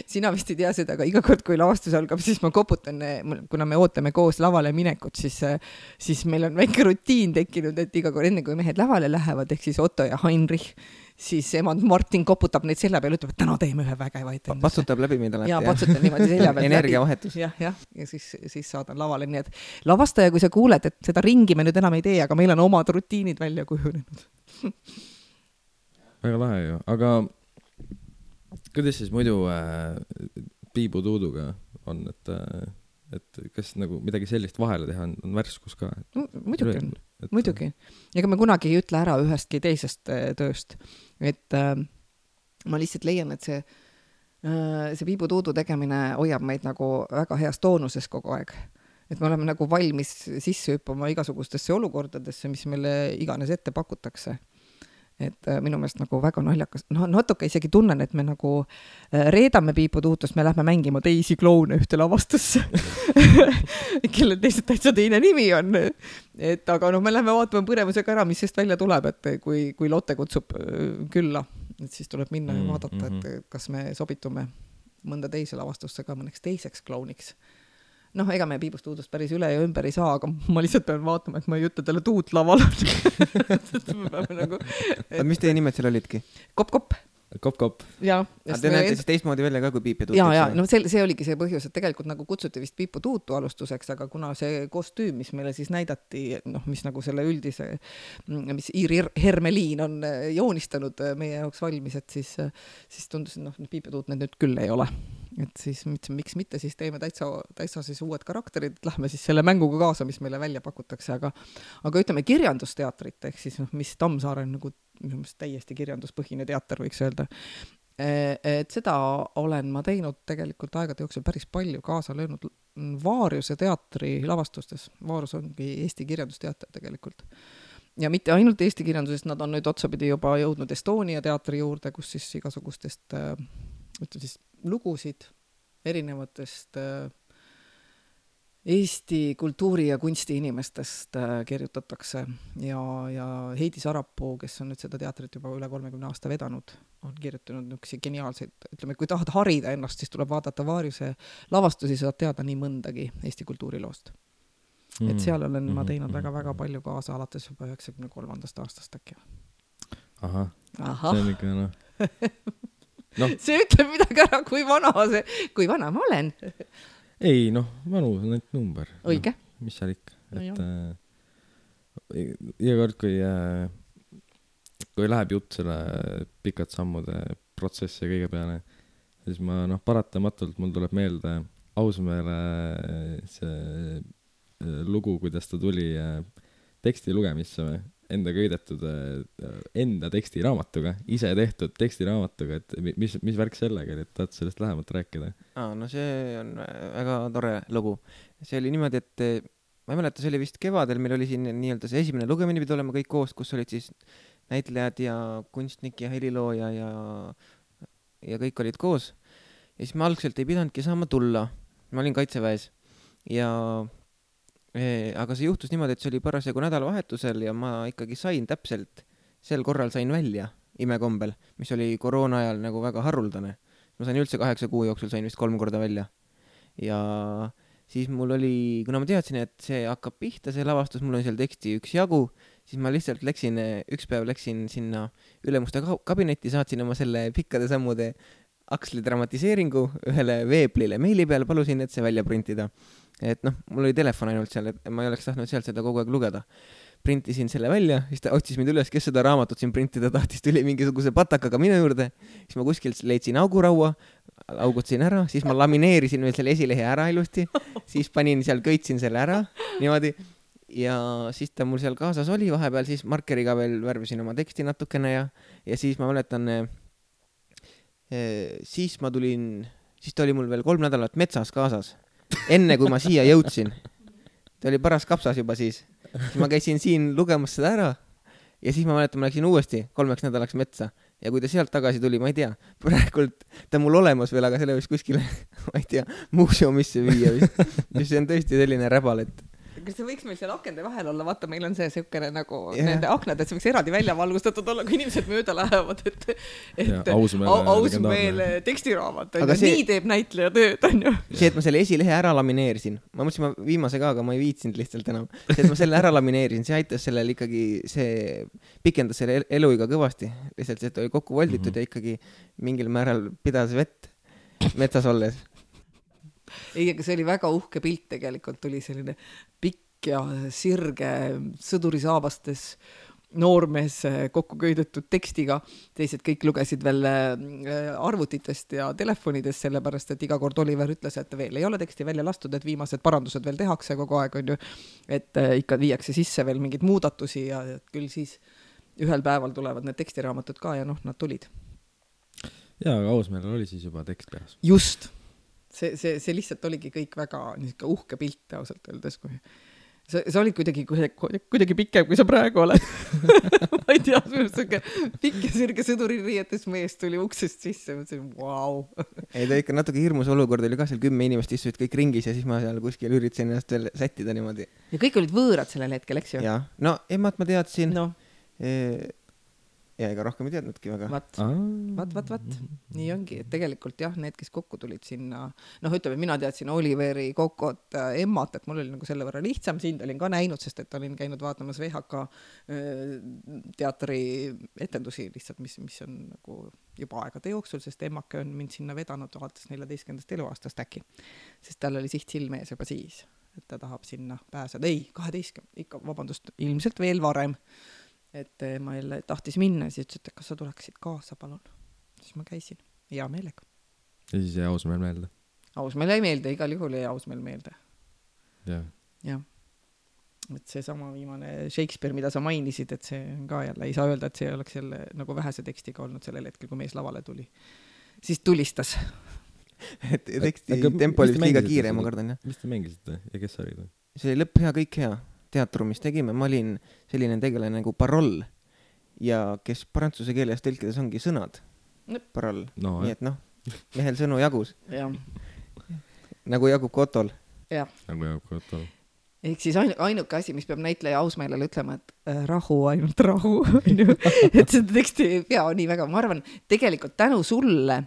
Sina vist ei tea seda, aga iga kord, kui lavastus algab, siis ma koputan, kuna me ootame koos lavale minekut, siis meil on väike rutiin tekkinud, et iga kord enne, kui mehed lavale lähevad, ehk siis Otto ja Heinrich, siis emand Martin koputab neid selja peal, ütleb, et täna teeme ühe vägeva etenduse. Patsutab läbi meid alati. Ja patsutab niimoodi selja peal. Energiavahetus. Ja siis saadan lavale. Nii et lavastaja, kui sa kuuled, et seda ringi me nüüd enam ei tee, aga meil on omad rutiinid välja kujunenud. Väga lahe ju, aga kuidas siis muidu Piibu Tuuduga on, et kas nagu midagi sellist vahele teha on värskus ka? Muidugi on, muidugi. Ega me kunagi ei ütle ära ühestki teisest tööst. Et ma lihtsalt leian, et see Piibu Tuudu tegemine hoiab meid nagu väga heas toonuses kogu aeg. Et me oleme nagu valmis sisse hüppama igasugustesse olukordadesse, mis meile iganes ette pakutakse. Et minu meelest nagu väga naljakas, natuke isegi tunnen, et me nagu reedame Piibu Tuutust, me lähme mängima teisi kloune ühte lavastusse, kelle teised täitsa teine nimi on. Et aga me lähme vaatama põrevusega ära, mis sest välja tuleb, et kui Lotte kutsub külla, et siis tuleb minna ja vaadata, et kas me sobitume mõnda teise lavastusse ka mõneks teiseks klouniks. Ega me Piibust Tuudust päris üle ja ümber ei saa, aga ma lihtsalt pean vaatama, et ma ei ütle talle Tuut laval. Mis teie nimed seal olidki? Kopp. Kopp. Ja, te näete siis teistmoodi välja ka kui Piip ja Tuut. Ja, see oligi see põhjus, et tegelikult nagu kutsuti vist Piipu Tuutu alustuseks, aga kuna see kostüüm, mis meile siis näidati, mis nagu selle üldise, mis Iiri Hermeliin on joonistanud meie jaoks valmis, et siis tundus, et Piip ja Tuut need nüüd küll ei ole. Et siis miks mitte, siis teeme täitsa siis uued karakterid, lähme siis selle mänguga kaasa, mis meile välja pakutakse, aga ütleme kirjandusteatrit, ehk siis mis Tammsaare on nagu täiesti kirjanduspõhine teater, võiks öelda. Et seda olen ma teinud tegelikult aegade jooksul päris palju kaasa löönud Vaariuse teatri lavastustes. Vaarus ongi Eesti kirjandusteater tegelikult. ja mitte ainult Eesti kirjandusest, nad on nüüd otsapidi juba jõudnud Estonia teatri juurde, kus siis igasugustest ütleme siis lugusid erinevatest Eesti kultuuri- ja kunsti inimestest kirjutatakse ja Heidi Sarapuu, kes on nüüd seda teatrit juba üle 30 aasta vedanud, on kirjutanud niisuguseid geniaalseid, ütleme, kui tahad harida ennast, siis tuleb vaadata Vaariuse lavastusi, saad teada nii mõndagi Eesti kultuuriloost. Et seal olen ma teinud väga-väga palju kaasa alates juba 93. aastast äkki. Ahah. See on ikka no. See ütleb midagi ära, kui vana ma olen. Ei, vanu on ainult number. Õige. Mis seal ikka? Iga kord, kui läheb jutt selle pikad sammude protsessi ja kõige peale, siis ma paratamatult mul tuleb meelde Ausmäele see lugu, kuidas ta tuli teksti lugemisse enda köidetud enda tekstiraamatuga, ise tehtud tekstiraamatuga, et mis värk sellega oli, et tahad sellest lähemalt rääkida? No see on väga tore lugu. See oli niimoodi, et ma ei mäleta, see oli vist kevadel, meil oli siin nii-öelda see esimene lugemine pidi olema kõik koos, kus olid siis näitlejad ja kunstnik ja helilooja ja kõik olid koos. Ja siis ma algselt ei pidanudki saama tulla. Ma olin Kaitseväes aga see juhtus niimoodi, et see oli parasjagu nädalavahetusel ja ma ikkagi sain täpselt, sel korral sain välja imekombel, mis oli koroona ajal nagu väga haruldane. Ma sain üldse 8 kuu jooksul, sain vist 3 korda välja. Ja siis mul oli, kuna ma teadsin, et see hakkab pihta, see lavastus, mul on seal teksti üks jagu, siis ma lihtsalt üks päev läksin sinna ülemuste kabinetti, saatsin oma selle pikkade sammude Aksli dramatiseeringu ühele veeblile meili peal, palusin, et see välja printida. Et mul oli telefon ainult seal, et ma ei oleks tahtnud sealt seda kogu aeg lugeda. Printisin selle välja, siis ta otsis mind üles, kes seda raamatut siin printida tahtis, tuli mingisuguse patakaga minu juurde, siis ma kuskilt leidsin auguraua, augutasin ära, siis ma lamineerisin veel selle esilehe ära ilusti, siis panin seal, köitsin selle ära, niimoodi, ja siis ta mul seal kaasas oli vahepeal, siis markeriga veel värvisin oma teksti natukene ja siis ma mäletan, siis ta oli mul veel 3 nädalat metsas kaasas, enne kui ma siia jõudsin. Ta oli paras kapsas juba siis ma käisin siin lugemas seda ära ja siis ma mäletan, ma läksin uuesti 3 nädalaks metsa ja kui ta sealt tagasi tuli, ma ei tea, praegult ta mul olemas veel, aga selle võiks kuskile, ma ei tea, muuseumisse viia vist. See on tõesti selline räbal, et kas see võiks meil seal akende vahel olla, vaata, meil on see siukene nagu nende aknad, et see võiks eraldi välja valgustatud olla, kui inimesed mööda lähevad, et Ausmäele tekstiraamat, nii teeb näitleja tööd, on ju. See, et ma selle esilehe ära lamineerisin, ma mõtlesin, ma viimase ka, aga ma ei viitsinud lihtsalt enam. See, et ma selle ära lamineerisin, see aitas sellel ikkagi, see pikendas selle eluiga kõvasti, lihtsalt see, et oli kokku volditud ja ikkagi mingil määral pidas vett metsas olles. Ei, aga see oli väga uhke pilt tegelikult, tuli selline pikk ja sirge sõdurisaabastes noormees kokku köidetud tekstiga, teised kõik lugesid veel arvutitest ja telefonidest, sellepärast, et iga kord Oliver ütles, et veel ei ole teksti välja lastud, et viimased parandused veel tehakse kogu aeg, on ju, et ikka viiakse sisse veel mingeid muudatusi ja küll siis ühel päeval tulevad need tekstiraamatud ka ja nad tulid. Jaa, aga Ausmäel oli siis juba tekst peas. Just. See lihtsalt oligi kõik väga uhke pilt ausalt öeldes, kui sa olid kuidagi pikem, kui sa praegu oled. Ma ei tea, pikk ja sirge sõduririietes mees tuli uksest sisse, mõtlesin, vau. Ei, ta ikka natuke hirmus olukord oli ka, seal 10 inimest istusid kõik ringis ja siis ma seal kuskil üritasin ennast veel sättida niimoodi. Ja kõik olid võõrad sellel hetkel, eks ju? Jaa, no emad ma teadsin. Ja ega rohkem ei teadnudki väga. Vat. Nii ongi, et tegelikult jah, need, kes kokku tulid sinna, ütleme, mina teadsin Oliveri, Kokot, Emmat, et mul oli nagu selle võrra lihtsam, sind olin ka näinud, sest et olin käinud vaatamas VHK teatri etendusi lihtsalt, mis on nagu juba aegade jooksul, sest Emmake on mind sinna vedanud alates 14. eluaastast äkki, sest tal oli siht silmees juba siis, et ta tahab sinna pääseda. Ei, 12, ikka, vabandust, ilmselt veel varem. Et ma jälle tahtis minna ja siis ütles, et kas sa tuleksid kaasa, palun. Siis ma käisin hea meelega. Ja siis jäi Ausmäel meelde? Ausmäel ei meelde, igal juhul jäi Ausmäel meelde. Jah. Et see sama viimane Shakespeare, mida sa mainisid, et see on ka jälle, ei saa öelda, et see oleks jälle nagu vähese tekstiga olnud sellel hetkel, kui mees lavale tuli. Siis tulistas. Et teksti tempo oli vist liiga kiire, ma kardan, jah. Mis te mängisite ja kes olid? See oli lõpp hea, kõik hea. teatrumis tegime, ma olin selline tegelane nagu paroll ja kes prantsuse keeles tõlkides ongi sõnad. Paroll. No, nii et mehel sõnu jagus. Jah. Nagu jagub Kotol. Jah. Nagu jagub Kotol. Ehk siis ainuke asi, mis peab näitleja ausmeelele ütlema, et rahu, ainult rahu. Et seda teksti ei pea nii väga. Ma arvan, tegelikult tänu sulle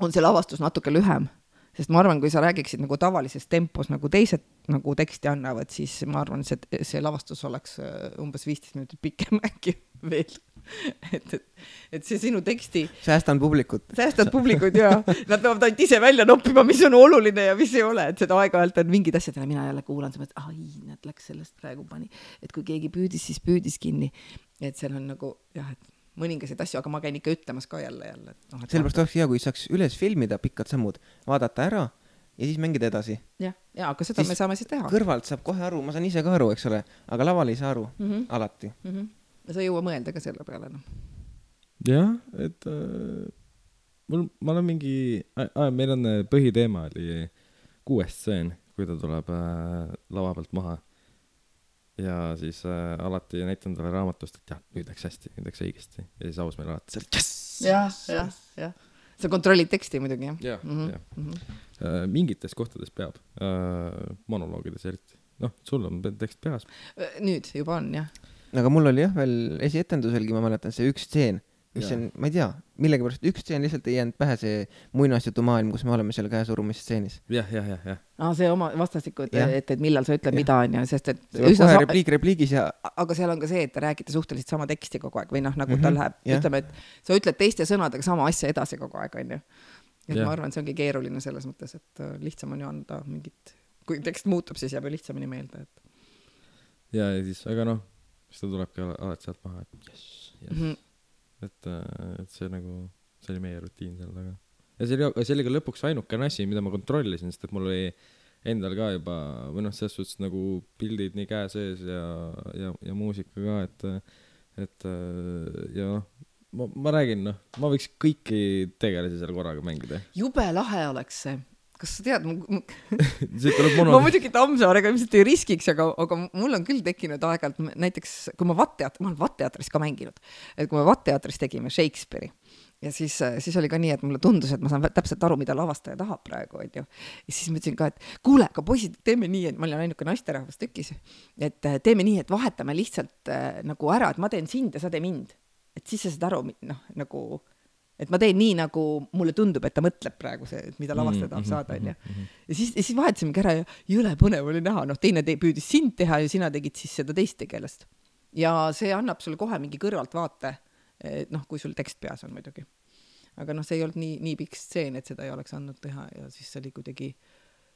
on see lavastus natuke lühem. Sest ma arvan, kui sa räägiksid nagu tavalises tempos, nagu teised nagu teksti annavad, siis ma arvan, see lavastus oleks umbes 15 minutit pikem äkki veel. Et see sinu teksti... Säästan publikut ja nad peavad ainult ise välja noppima, mis on oluline ja mis ei ole. Et seda aeg-ajalt on mingid asjad, mina jälle kuulan, et nad läks sellest praegu pani. Et kui keegi püüdis, siis püüdis kinni. Et seal on nagu, jah, et mõningasid asju, aga ma käin ikka ütlemas ka jälle. Sellepärast oleks hea, kui saaks üles filmida pikad sammud, vaadata ära ja siis mängida edasi. Ja, aga seda siis me saame siis teha. Kõrvalt saab kohe aru, ma saan ise ka aru, eks ole, aga laval ei saa aru alati. Sa jõua mõelda ka selle peale. Jah, et ma olen mingi... meil on põhiteema oli 6 stseen, kui ta tuleb lava pealt maha. Ja siis alati näitan talle raamatust, et jah, nüüd läks hästi, nüüd läks õigesti. Ja siis aus meil alati seal, jah. Sa kontrollid teksti muidugi, jah? Jah. Mingites kohtades peab. Monoloogides eriti. Sul on tekst peas. Nüüd juba on, jah. Aga mul oli jah, veel esietenduselgi, ma mäletan see üks stseen, mis on, ma ei tea, millegipärast üks stseen lihtsalt ei jäänud pähe see muinasjutu maailm, kus me oleme seal käesurumise stseenis. Jah. See oma vastastiku, et millal sa ütled mida on ja sest, et kohe repliigis ja... Aga seal on ka see, et te räägite suhteliselt sama teksti kogu aeg või nagu ta läheb, ütleme, et sa ütled teiste sõnadega sama asja edasi kogu aeg, on ju. Et ma arvan, see ongi keeruline selles mõttes, et lihtsam on ju anda mingit, kui tekst muutub, siis jääb ju lihtsamini meelde. Ja siis, aga siis ta tulebki alati sealt maha, et yes. Et see nagu, see oli meie rutiin seal taga. Ja see oli ka lõpuks ainukene asi, mida ma kontrollisin, sest et mul oli endal ka juba, või selles suhtes nagu pildid nii käe sees ja muusika ka, et ja ma räägin, ma võiks kõiki tegelasi seal korraga mängida. Jube lahe oleks see. Kas sa tead, ma muidugi Tammsaarega ilmselt ei riskiks, aga mul on küll tekkinud aeg-ajalt, näiteks kui ma olen Vatteatris ka mänginud, et kui me Vatteatris tegime Shakespeare'i ja siis oli ka nii, et mulle tundus, et ma saan täpselt aru, mida lavastaja tahab praegu, ja siis ma ütlesin ka, et kuule, aga poisid, teeme nii, et ma olin ainuke naisterahvas tükis, et teeme nii, et vahetame lihtsalt nagu ära, et ma teen sind ja sa tee mind, et siis sa saad aru, nagu et ma teen nii, nagu mulle tundub, et ta mõtleb praegu see, mida lavastaja tahab saada, on ju. Ja siis vahetasime ära ja jõle põnev oli näha. Teine püüdis sind teha ja sina tegid siis seda teist tegelast. Ja see annab sulle kohe mingi kõrvalt vaate, kui sul tekst peas on muidugi. Aga see ei olnud nii pikk stseen, et seda ei oleks andnud teha ja siis see oli kuidagi,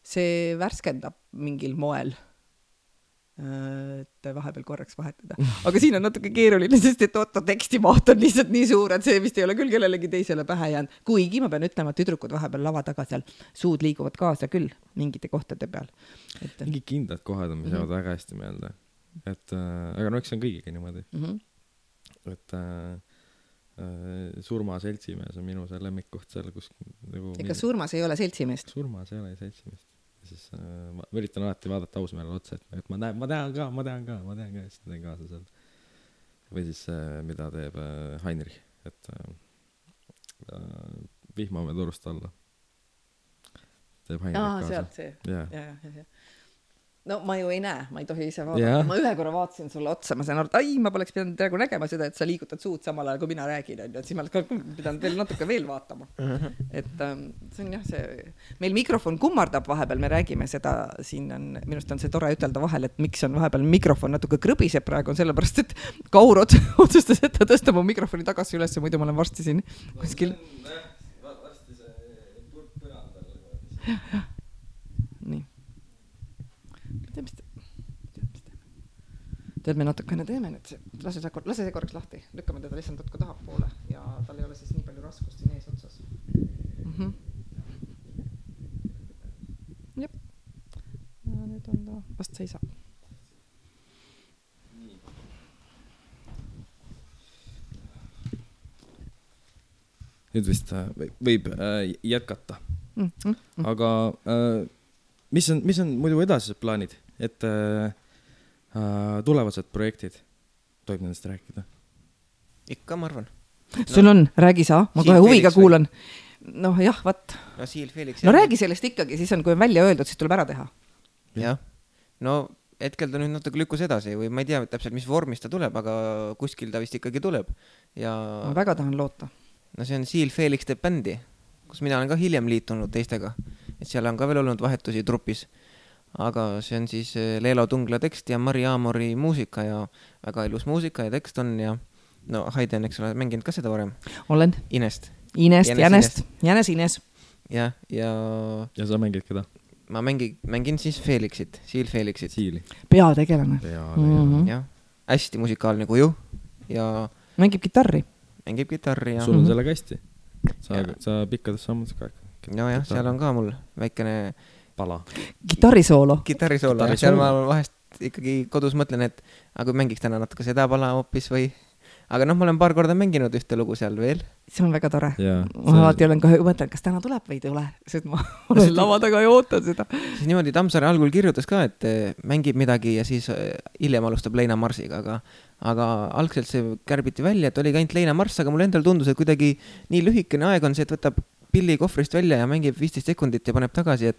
see värskendab mingil moel, et vahepeal korraks vahetada. Aga siin on natuke keeruline, sest et tekstimaht on lihtsalt nii suur, et see vist ei ole küll kellelegi teisele pähe jäänud. Kuigi ma pean ütlema, et tüdrukud vahepeal lava taga seal suud liiguvad kaasa küll mingite kohtade peal. Mingi kindlad kohad on, mis jäävad väga hästi meelde. Aga eks see on kõigiga niimoodi. Et Surma seltsimees on minu see lemmikkoht seal, kus nagu... Ega Surmas ei ole seltsimeest? Surmas ei ole seltsimeest. Siis ma üritan alati vaadata ausmeele otsa, et ma tean ka, siis teen kaasa seal. Või siis mida teeb Heinrich, et vihmame turust alla. Teeb Heinrich kaasa. Sealt see. Ja. No ma ju ei näe, ma ei tohi ise vaadata. Ma ühe korra vaatasin sulle otsa, ma sain aru, et ma poleks pidanud praegu nägema seda, et sa liigutad suud samal ajal, kui mina räägin, et siis ma oleks pidanud veel natuke veel vaatama. Et see on jah, meil mikrofon kummardab vahepeal, me räägime seda, siin on, minust on see tore ütelda vahel, et miks on vahepeal mikrofon natuke krõbiseb praegu, on sellepärast, et Kaur otsustas, et ta tõstab mu mikrofoni tagasi üles, muidu ma olen varsti siin kuskil. Varsti see turg põrandal. Nii. Tead, me natukene teeme nüüd, lase see korraks lahti, lükkame teda lihtsalt natuke tahapoole ja tal ei ole siis nii palju raskust siin ees otsas. Jep. Ja nüüd on ta, vast seisab. Nüüd vist võib jätkata. Aga mis on muidu edasised plaanid, et Tulevased projektid, tohib nendest rääkida? Ikka, ma arvan. Sul on, räägi sa, ma kohe huviga kuulan. Noh, jah, vaat. No Seal Felix. No räägi sellest ikkagi, siis on, kui on välja öeldud, siis tuleb ära teha. Jah, no hetkel ta nüüd natuke lükkus edasi või ma ei tea täpselt, mis vormis ta tuleb, aga kuskil ta vist ikkagi tuleb. Ja ma väga tahan loota. No see on Seal Felix teeb bändi, kus mina olen ka hiljem liitunud teistega. Et seal on ka veel olnud vahetusi trupis. Aga see on siis Leelo Tungla tekst ja Mari Aamori muusika ja väga ilus muusika ja tekst on ja no Haide on, eks ole, mänginud ka seda varem. Olen. Inest. Jänes. Ja sa mängid keda? Ma mängin siis Felixit, Seal Felixit. Siili. Peategelane. Jah, hästi musikaalne kuju ja mängib kitarri ja sul on sellega hästi. Sa pikkades sammud ka. No jah, seal on ka mul väikene pala. Kitarrisoolo. Seal ma vahest ikkagi kodus mõtlen, et aga kui mängiks täna natuke seda pala hoopis või aga noh, ma olen paar korda mänginud ühte lugu seal veel. See on väga tore. Ma alati olen ka mõtlen, kas täna tuleb või ei tule, sest ma olen lava taga ja ootan seda. Siis niimoodi Tammsaare algul kirjutas ka, et mängib midagi ja siis hiljem alustab Leina Marsiga, aga algselt see kärbiti välja, et oli ka ainult Leina Mars, aga mul endal tundus, et kuidagi nii lühikene aeg on see, et võtab pilli kohvrist välja ja mängib 15 sekundit ja paneb tagasi,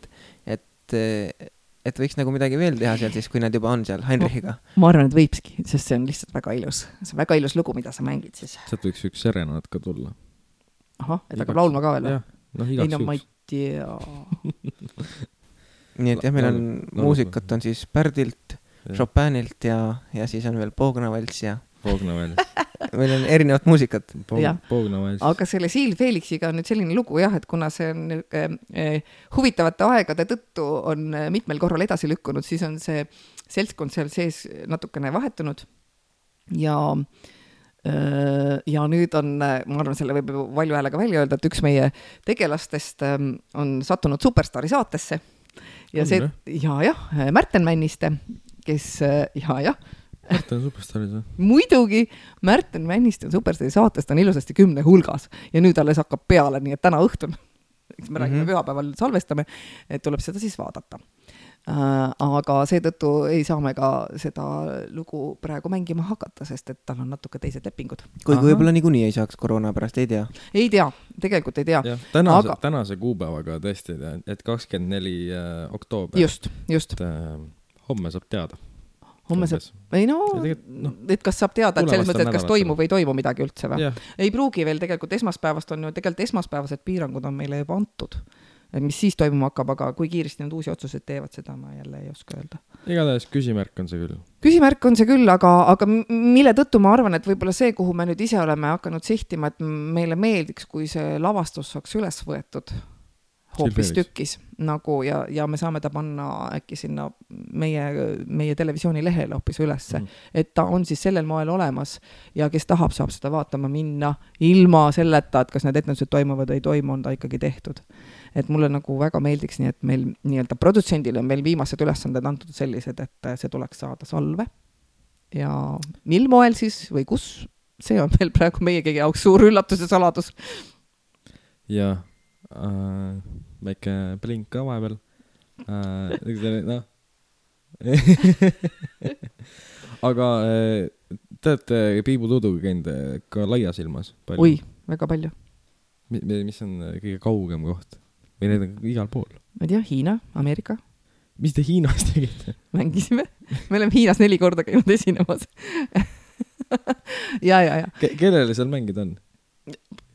et võiks nagu midagi veel teha seal siis, kui nad juba on seal Heinrichiga. Ma arvan, et võibski, sest see on lihtsalt väga ilus. See on väga ilus lugu, mida sa mängid siis. Sealt võiks üks serenaad ka tulla. Ahah, et hakkab laulma ka veel? Ei, no ma ei tea. Nii et jah, meil on muusikat on siis Pärdilt, Chopinilt ja siis on veel Poognavalts ja meil on erinevat muusikat. Aga selle Seal Felixiga on nüüd selline lugu jah, et kuna see on huvitavate aegade tõttu on mitmel korral edasi lükkunud, siis on see seltskond seal sees natukene vahetunud ja nüüd on, ma arvan, selle võib valju häälega välja öelda, et üks meie tegelastest on sattunud Superstaari saatesse ja see, Märten Männiste, kes, Märten on Superstaaris või? Muidugi, Märten Männiste on Superstaari saatest, on ilusasti 10 hulgas ja nüüd alles hakkab peale, nii et täna õhtun, eks me räägime pühapäeval salvestame, et tuleb seda siis vaadata. Aga seetõttu ei saa me ka seda lugu praegu mängima hakata, sest et tal on natuke teised lepingud. Kui võib-olla niikuinii ei saaks koroona pärast, ei tea? Ei tea, tegelikult ei tea. Tänase kuupäevaga tõesti, et 24 oktoober. Just. Homme saab teada. Homme saab, et kas saab teada, et selles mõttes, et kas toimub või ei toimu midagi üldse või? Ei pruugi veel tegelikult esmaspäevast on ju, tegelikult esmaspäevased piirangud on meile juba antud. Mis siis toimuma hakkab, aga kui kiiresti need uusi otsused teevad, seda ma jälle ei oska öelda. Igatahes küsimärk on see küll. Küsimärk on see küll, aga mille tõttu ma arvan, et võib-olla see, kuhu me nüüd ise oleme hakanud sihtima, et meile meeldiks, kui see lavastus saaks üles võetud hoopis tükis nagu ja me saame ta panna äkki sinna meie televisiooni lehele hoopis ülesse, et ta on siis sellel moel olemas ja kes tahab, saab seda vaatama minna ilma selleta, et kas need etendused toimuvad või ei toimu, on ta ikkagi tehtud. Et mulle nagu väga meeldiks nii, et meil nii-öelda produtsendile on meil viimased ülesanded antud sellised, et see tuleks saada salve ja mil moel siis või kus, see on veel praegu meie kõige jaoks suur üllatus ja saladus. Ja väike blink ka vahepeal. Aga te olete Piibu Tuduga käinud ka laias ilmas palju? Oi, väga palju. Mis on kõige kaugem koht? Või need on igal pool? Ma ei tea, Hiina, Ameerika. Mis te Hiinas tegite? Mängisime. Me oleme Hiinas 4 korda käinud esinemas. ja. Kellele seal mängid on?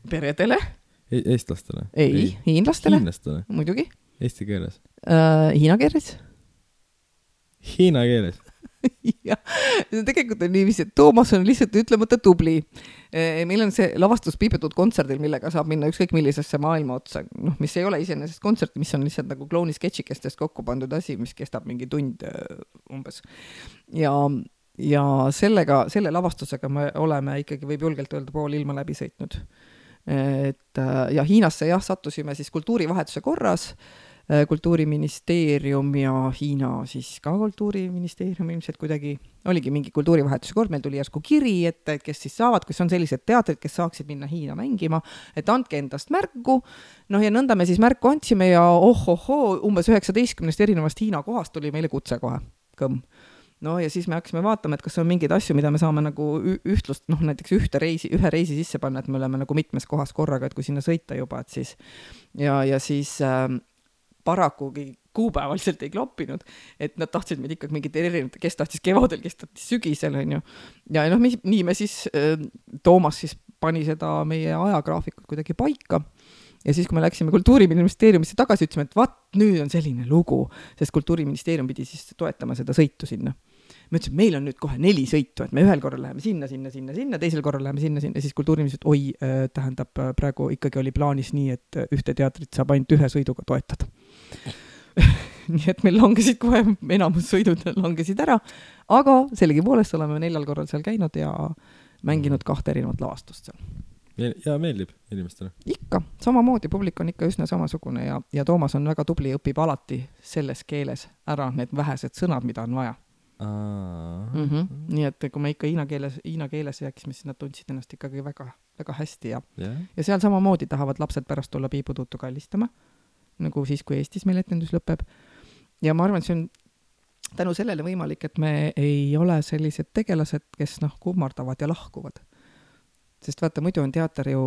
Peredele. Eestlastele? Ei, hiinlastele. Hiinlastele? Muidugi. Eesti keeles? Hiina keeles. Hiina keeles? Ja, tegelikult on niiviisi, et Toomas on lihtsalt ütlemata tubli. Meil on see lavastus piibetud kontserdil, millega saab minna ükskõik millisesse maailma otsa, mis ei ole iseenesest kontsert, mis on lihtsalt nagu klouni sketšikestest kokku pandud asi, mis kestab mingi tund umbes. Ja selle lavastusega me oleme ikkagi, võib julgelt öelda, pool ilma läbi sõitnud. Ja Hiinasse sattusime siis kultuurivahetuse korras, Kultuuriministeerium ja Hiina siis ka Kultuuriministeerium ilmselt kuidagi oligi mingi kultuurivahetuse kord, meil tuli järsku kiri, et kes siis saavad, kes on sellised teatrid, kes saaksid minna Hiina mängima, et andke endast märku, ja nõnda me siis märku andsime ja umbes 19 erinevast Hiina kohast tuli meile kutse kohe, kõmm. no ja siis me hakkasime vaatama, et kas on mingeid asju, mida me saame nagu ühtlust, noh näiteks ühe reisi sisse panna, et me oleme nagu mitmes kohas korraga, et kui sinna sõita juba, et siis ja siis paraku kuupäevaliselt ei kloppinud, et nad tahtsid meid ikkagi mingid erinevad, kes tahtis kevadel, kes tahtis sügisel, on ju. Ja noh, nii me siis, Toomas siis pani seda meie ajagraafikut kuidagi paika. Ja siis, kui me läksime Kultuuriministeeriumisse tagasi, ütlesime, et vaat, nüüd on selline lugu, sest Kultuuriministeerium pidi siis toetama seda sõitu sinna. Me ütlesime, meil on nüüd kohe 4 sõitu, et me ühel korral läheme sinna, teisel korral läheme sinna, siis Kultuuriministeerium, tähendab, praegu ikkagi oli plaanis nii, et ühte teatrit saab ainult ühe sõiduga toetada. Nii et meil langesid kohe, enamus sõidud langesid ära, aga sellegipoolest oleme 4 korral seal käinud ja mänginud 2 erinevat lavastust seal. Ja meeldib inimestele? Ikka, samamoodi, publik on ikka üsna samasugune ja Toomas on väga tubli, õpib alati selles keeles ära need vähesed sõnad, mida on vaja. Nii et kui me ikka hiina keeles rääkisime, siis nad tundsid ennast ikkagi väga, väga hästi ja seal samamoodi tahavad lapsed pärast tulla piiputuutu kallistama, nagu siis, kui Eestis meil etendus lõpeb. Ja ma arvan, et see on tänu sellele võimalik, et me ei ole sellised tegelased, kes kummardavad ja lahkuvad. Sest vaata, muidu on teater ju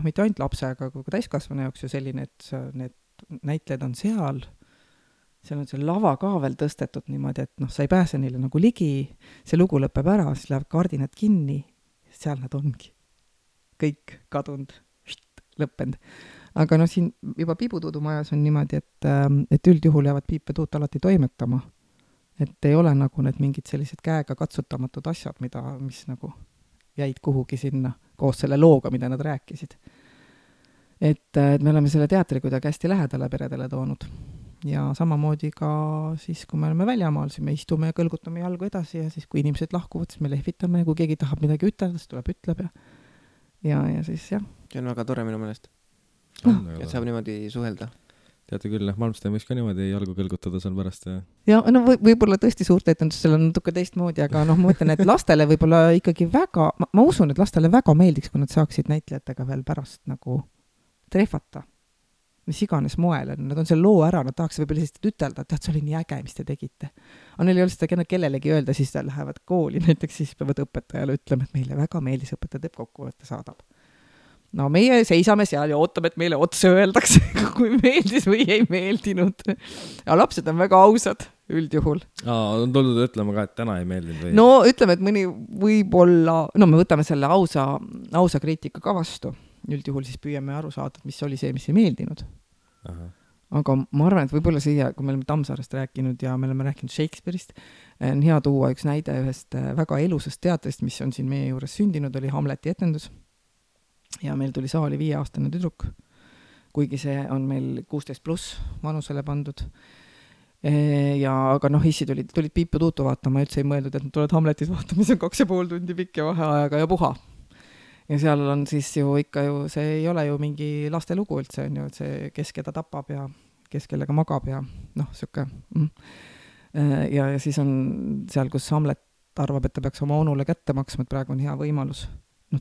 mitte ainult lapse, aga kui täiskasvanu jaoks ju selline, et need näitlejad on seal on see lava ka veel tõstetud niimoodi, et sa ei pääse neile nagu ligi, see lugu lõpeb ära, siis läheb kardinad kinni, seal nad ongi. Kõik kadunud, lõppenud. Aga siin juba Piibutuudumajas on niimoodi, et üldjuhul jäävad piipetuut alati toimetama. Et ei ole nagu need mingid sellised käega katsutamatud asjad, mis nagu jäid kuhugi sinna koos selle looga, mida nad rääkisid. Et me oleme selle teatri kuidagi hästi lähedale peredele toonud. Ja samamoodi ka siis, kui me oleme väljamaal, siis me istume ja kõlgutame jalgu edasi ja siis, kui inimesed lahkuvad, siis me lehvitame ja kui keegi tahab midagi ütelda, siis tuleb ütleb ja siis jah. See on väga tore minu meelest. Et saab niimoodi suhelda. Teate küll, Malmsteen võiks ka niimoodi jalgu kõlgutada seal pärast. Ja võib-olla tõesti suurt etendustel on natuke teistmoodi, aga ma mõtlen, et lastele võib-olla ikkagi väga, ma usun, et lastele väga meeldiks, kui nad saaksid näitlejatega veel pärast nagu trehvata. Mis iganes moel, nad on selle loo ära, nad tahaks võib-olla lihtsalt ütelda, et see oli nii äge, mis te tegite. Aga neil ei ole seda kellelegi öelda, siis nad lähevad kooli, näiteks siis peavad õpetajale ütlema, et meile väga meeldis, õpetaja teeb kokkuvõtte saadab. No meie seisame seal ja ootame, et meile otse öeldakse, kui meeldis või ei meeldinud. Ja lapsed on väga ausad üldjuhul. On tuldud ütlema ka, et täna ei meeldinud või? No ütleme, et mõni võib-olla, me võtame selle ausa kriitika ka vastu. Üldjuhul siis püüame aru saada, mis oli see, mis ei meeldinud. Aga ma arvan, et võib-olla siia, kui me oleme Tammsaarest rääkinud ja me oleme rääkinud Shakespeare'ist, on hea tuua üks näide ühest väga elusast teatrist, mis on siin meie juures sündinud, oli Hamleti etendus. Ja meil tuli saali 5-aastane tüdruk, kuigi see on meil 16+ vanusele pandud. Aga issi tulid Piiputuutu vaatama, üldse ei mõeldud, et nad tulevad Hamletit vaatama, mis on 2,5 tundi pikk ja vaheajaga ja puha. Ja seal on siis ju ikka see ei ole ju mingi laste lugu üldse, on ju, et see kes keda tapab ja kes kellega magab ja siuke. Ja siis on seal, kus Hamlet arvab, et ta peaks oma onule kätte maksma, et praegu on hea võimalus.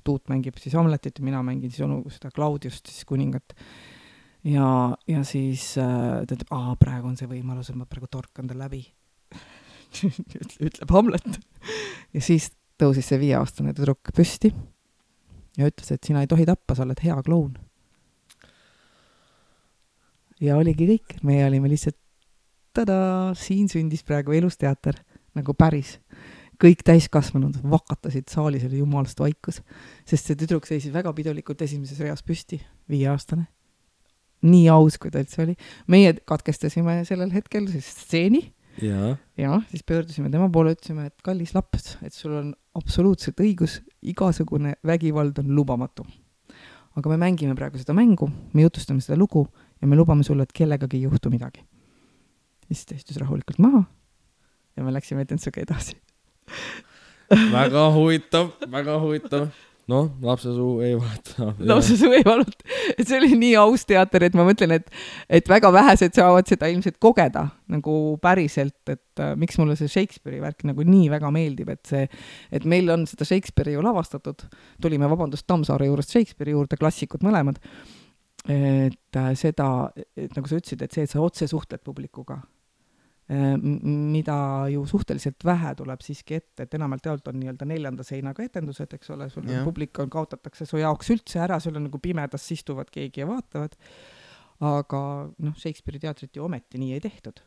Tuut mängib siis Hamletit ja mina mängin siis onu seda Claudiust, siis kuningat. Ja siis ta ütleb, praegu on see võimalus, et ma praegu torkan ta läbi. Ütleb Hamlet. Ja siis tõusis see 5-aastane tüdruk püsti ja ütles, et sina ei tohi tappa, sa oled hea kloun. Ja oligi kõik. Me olime lihtsalt siin sündis praegu elusteater, nagu päris. Kõik täiskasvanud vakatasid saalis, oli jumalast vaikus, sest see tüdruk seisis väga pidulikult esimeses reas püsti, 5-aastane. Nii aus, kui ta üldse oli. Meie katkestasime sellel hetkel siis stseeni. Ja siis pöördusime tema poole, ütlesime, et kallis laps, et sul on absoluutselt õigus, igasugune vägivald on lubamatu. Aga me mängime praegu seda mängu, me jutustame seda lugu ja me lubame sulle, et kellegagi ei juhtu midagi. Ja siis ta istus rahulikult maha ja me läksime etendusega edasi. Väga huvitav. Lapse suu ei valuta. Lapse suu ei valuta. Et see oli nii aus teater, et ma mõtlen, et väga vähesed saavad seda ilmselt kogeda nagu päriselt, et miks mulle see Shakespeare'i värk nagu nii väga meeldib, et meil on seda Shakespeare'i ju lavastatud. Tulime Tammsaare juurest Shakespeare'i juurde, klassikud mõlemad. Et seda, et nagu sa ütlesid, et see, et sa otse suhtled publikuga. mida ju suhteliselt vähe tuleb siiski ette, et enamalt jaolt on nii-öelda 4. seinaga etendused, eks ole, sul publik kaotatakse su jaoks üldse ära, sul on nagu pimedas istuvad keegi ja vaatavad, aga noh, Shakespeare'i teatrit ju ometi nii ei tehtud.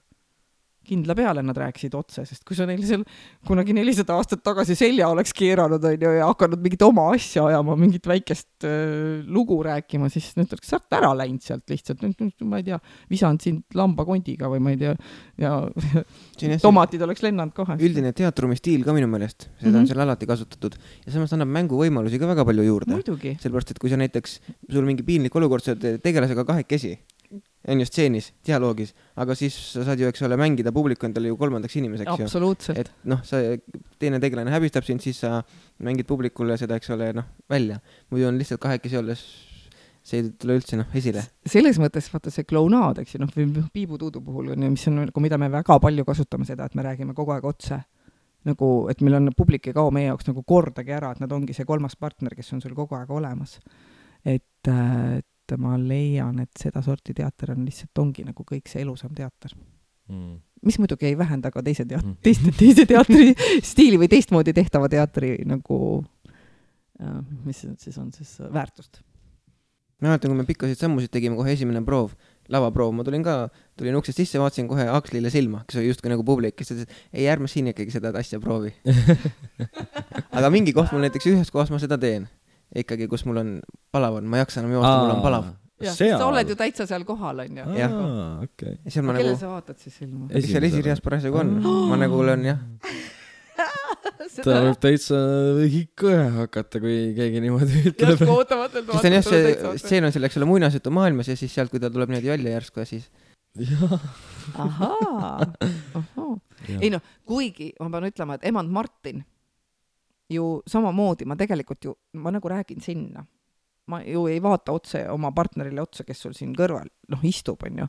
Kindla peale nad rääkisid otse, sest kui sa neil seal kunagi 400 aastat tagasi selja oleks keeranud ja hakanud mingit oma asja ajama, mingit väikest lugu rääkima, siis nüüd oleks sealt ära läinud sealt lihtsalt, ma ei tea, visanud sind lambakondiga või ma ei tea, ja tomatid oleks lennanud kohe. Üldine teatrumi stiil ka minu meelest, seda on seal alati kasutatud ja samas annab mänguvõimalusi ka väga palju juurde. Muidugi. Sellepärast, et kui sa näiteks, sul mingi piinlik olukord, sa tegelasega kahekesi, on ju stseenis, dialoogis, aga siis sa saad ju, eks ole, mängida publiku endale ju 3. inimeseks. Absoluutselt. Et noh, sa teine tegelane häbistab sind, siis sa mängid publikule seda, eks ole, noh, välja. Muidu on lihtsalt kahekesi olles, see ei tule üldse esile. Selles mõttes, vaata see klounaad, eks ju, piibutuudu puhul, mis on, mida me väga palju kasutame seda, et me räägime kogu aeg otse. Nagu, et meil on publik ei kao meie jaoks nagu kordagi ära, et nad ongi see 3. partner, kes on sul kogu aeg olemas. Et ma leian, et seda sorti teater on lihtsalt ongi nagu kõik see elusam teater. Mis muidugi ei vähenda ka teise teatri stiili või teistmoodi tehtava teatri nagu, mis siis on siis väärtust. Ma mäletan, kui me pikkasid sammusid tegime kohe esimene proov, lavaproov, ma tulin uksest sisse, vaatasin kohe Akslile silma, kes oli justkui nagu publik, kes ütles, ei ärme siin ikkagi seda asja proovi. Aga mingi koht mul näiteks ühes kohas ma seda teen. Ikkagi, kus mul on palav on, ma jaksa enam joosta, mul on palav. Sa oled ju täitsa seal kohal, on ju. Okay. Kelle sa vaatad siis silma? Seal esirias parasjagu on. Ma nagu olen, jah. Ta võib täitsa kõhe hakata, kui keegi niimoodi ütleb. Just ootamatelt vaatab. Sest on jah, stseen on selleks muinasjutu maailmas ja siis sealt, kui ta tuleb niimoodi välja järsku ja siis... Ahaa. Ei noh, kuigi ma pean ütlema, et emand Martin ju samamoodi, ma tegelikult ju, ma nagu räägin sinna. Ma ju ei vaata otse oma partnerile otsa, kes sul siin kõrval istub, on ju.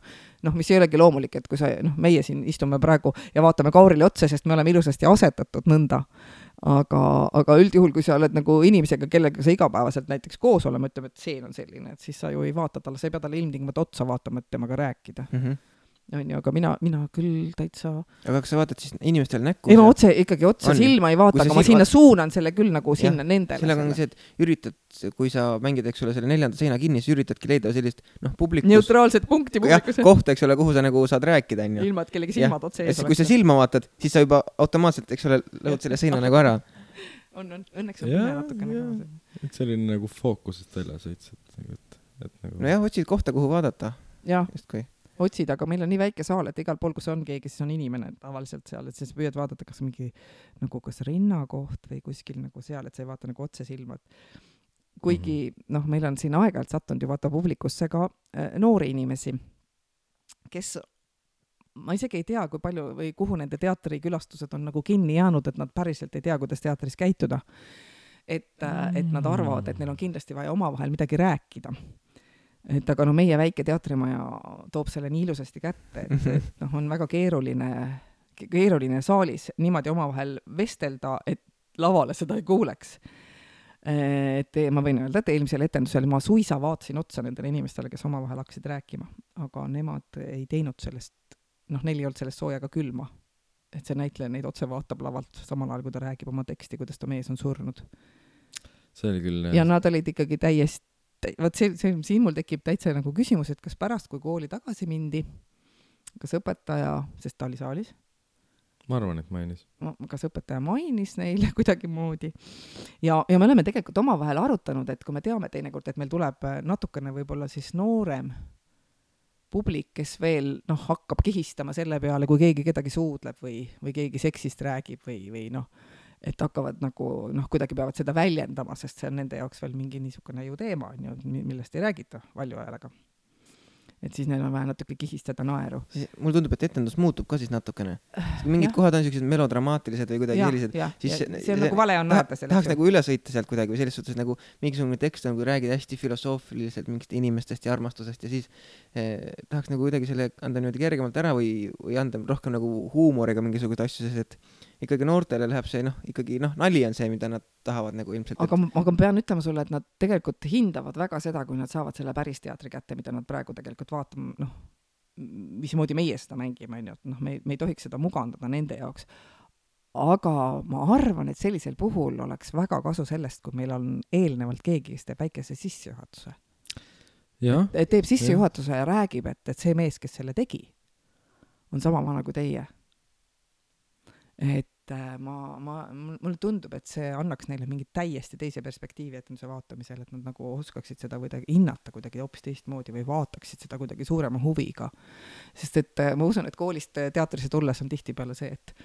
Mis ei olegi loomulik, et kui sa, meie siin istume praegu ja vaatame Kaurile otsa, sest me oleme ilusasti asetatud nõnda. Aga üldjuhul, kui sa oled nagu inimesega, kellega sa igapäevaselt näiteks koos olema, ütleme, et see on selline, et siis sa ju ei vaata talle, sa ei pea talle ilmtingimata otsa vaatama, et temaga rääkida. On ju, aga mina küll täitsa... Aga kas sa vaatad siis inimestele näkku? Ei, ma ikkagi otsa silma ei vaata, aga ma sinna suunan selle küll nagu sinna nendele. Sellega on see, et üritad, kui sa mängid, eks ole, selle 4. seina kinni, siis üritadki leida sellist, publikus... Neutraalset punkti publikus. Kohta, eks ole, kuhu sa nagu saad rääkida. Ilma, et kellegi silmad otse ees oleks. Kui sa silma vaatad, siis sa juba automaatselt, eks ole, lõhud selle seina nagu ära. Õnneks on pime natukene. Et selline nagu fookusest välja sõits. No jah, otsid kohta, kuhu vaadata. Justkui. Otsid, aga meil on nii väike saal, et igal pool, kus on keegi, siis on inimene tavaliselt seal, et siis püüad vaadata, kas mingi nagu kas rinnakoht või kuskil nagu seal, et sa ei vaata nagu otse silma. Kuigi, meil on siin aeg-ajalt sattunud ju vaata publikusse ka noori inimesi, kes, ma isegi ei tea, kui palju või kuhu nende teatrikülastused on nagu kinni jäänud, et nad päriselt ei tea, kuidas teatris käituda. Et nad arvavad, et neil on kindlasti vaja omavahel midagi rääkida. Et aga meie väike teatrimaja toob selle nii ilusasti kätte, et on väga keeruline saalis niimoodi omavahel vestelda, et lavale seda ei kuuleks. Et ma võin öelda, et eelmisel etendusel ma suisa vaatasin otsa nendele inimestele, kes omavahel hakkasid rääkima, aga nemad ei teinud sellest, neil ei olnud sellest soojaga külma. Et see näitleja neid otse vaatab lavalt samal ajal, kui ta räägib oma teksti, kuidas ta mees on surnud. See oli küll... Ja nad olid ikkagi täiesti siin mul tekib täitsa nagu küsimus, et kas pärast, kui kooli tagasi mindi, kas õpetaja, sest ta oli saalis? Ma arvan, et mainis. Kas õpetaja mainis neile kuidagi moodi. Ja me oleme tegelikult omavahel arutanud, et kui me teame teinekord, et meil tuleb natukene võib-olla siis noorem publik, kes veel hakkab kihistama selle peale, kui keegi kedagi suudleb või keegi seksist räägib või et hakkavad nagu, kuidagi peavad seda väljendama, sest see on nende jaoks veel mingi niisugune ju teema, millest ei räägita valju ajalega. Et siis neil on vähe natuke kihistada naeru. Mul tundub, et etendus muutub ka siis natukene. Mingid kohad on sellised melodramaatilised või kuidagi sellised. See on nagu vale on nähata sellest. Tahaks nagu üle sõita sealt kuidagi või selles suhtes nagu mingisugune tekst on, kui räägid hästi filosoofiliselt mingist inimestest ja armastusest ja siis tahaks nagu kuidagi selle anda niimoodi kergemalt ära või anda rohkem nagu huumoriga mingisugused asju, sest et ikkagi noortele läheb see, ikkagi nali on see, mida nad tahavad nagu ilmselt. Aga ma pean ütlema sulle, et nad tegelikult hindavad väga seda, kui nad saavad selle päris teatri kätte, mida nad praegu tegelikult vaatama, mismoodi meie seda mängime, on ju, et noh, me ei tohiks seda mugandada nende jaoks. Aga ma arvan, et sellisel puhul oleks väga kasu sellest, kui meil on eelnevalt keegi, kes teeb väikese sissejuhatuse. Teeb sissejuhatuse ja räägib, et see mees, kes selle tegi, on sama vana kui teie. Et mulle tundub, et see annaks neile mingi täiesti teise perspektiivi etenduse vaatamisel, et nad nagu oskaksid seda kuidagi hinnata kuidagi hoopis teistmoodi või vaataksid seda kuidagi suurema huviga. Sest et ma usun, et koolist teatrisse tulles on tihtipeale see, et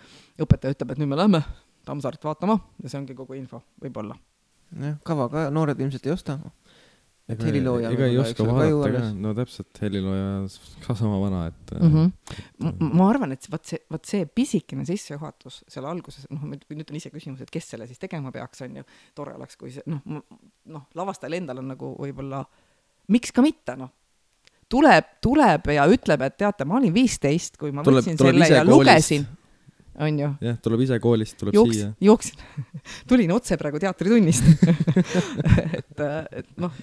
õpetaja ütleb, et nüüd me lähme Tammsaaret vaatama ja see ongi kogu info, võib-olla. Kava ka noored ilmselt ei osta. Helilooja ega ei oska vaadata ka, no täpselt helilooja ka sama vana, et ma arvan, et võt see pisikene sissejuhatus selle alguses, nüüd on ise küsimus, et kes selle siis tegema peaks, on ju, tore oleks, kui see, lavastajal endal on nagu võib-olla, miks ka mitte, tuleb ja ütleb, et teate, ma olin 15, kui ma võtsin selle ja lugesin, on ju. Jah, tuleb ise koolist, tuleb siia. Jooksin. Tulin otse praegu teatritunnist. et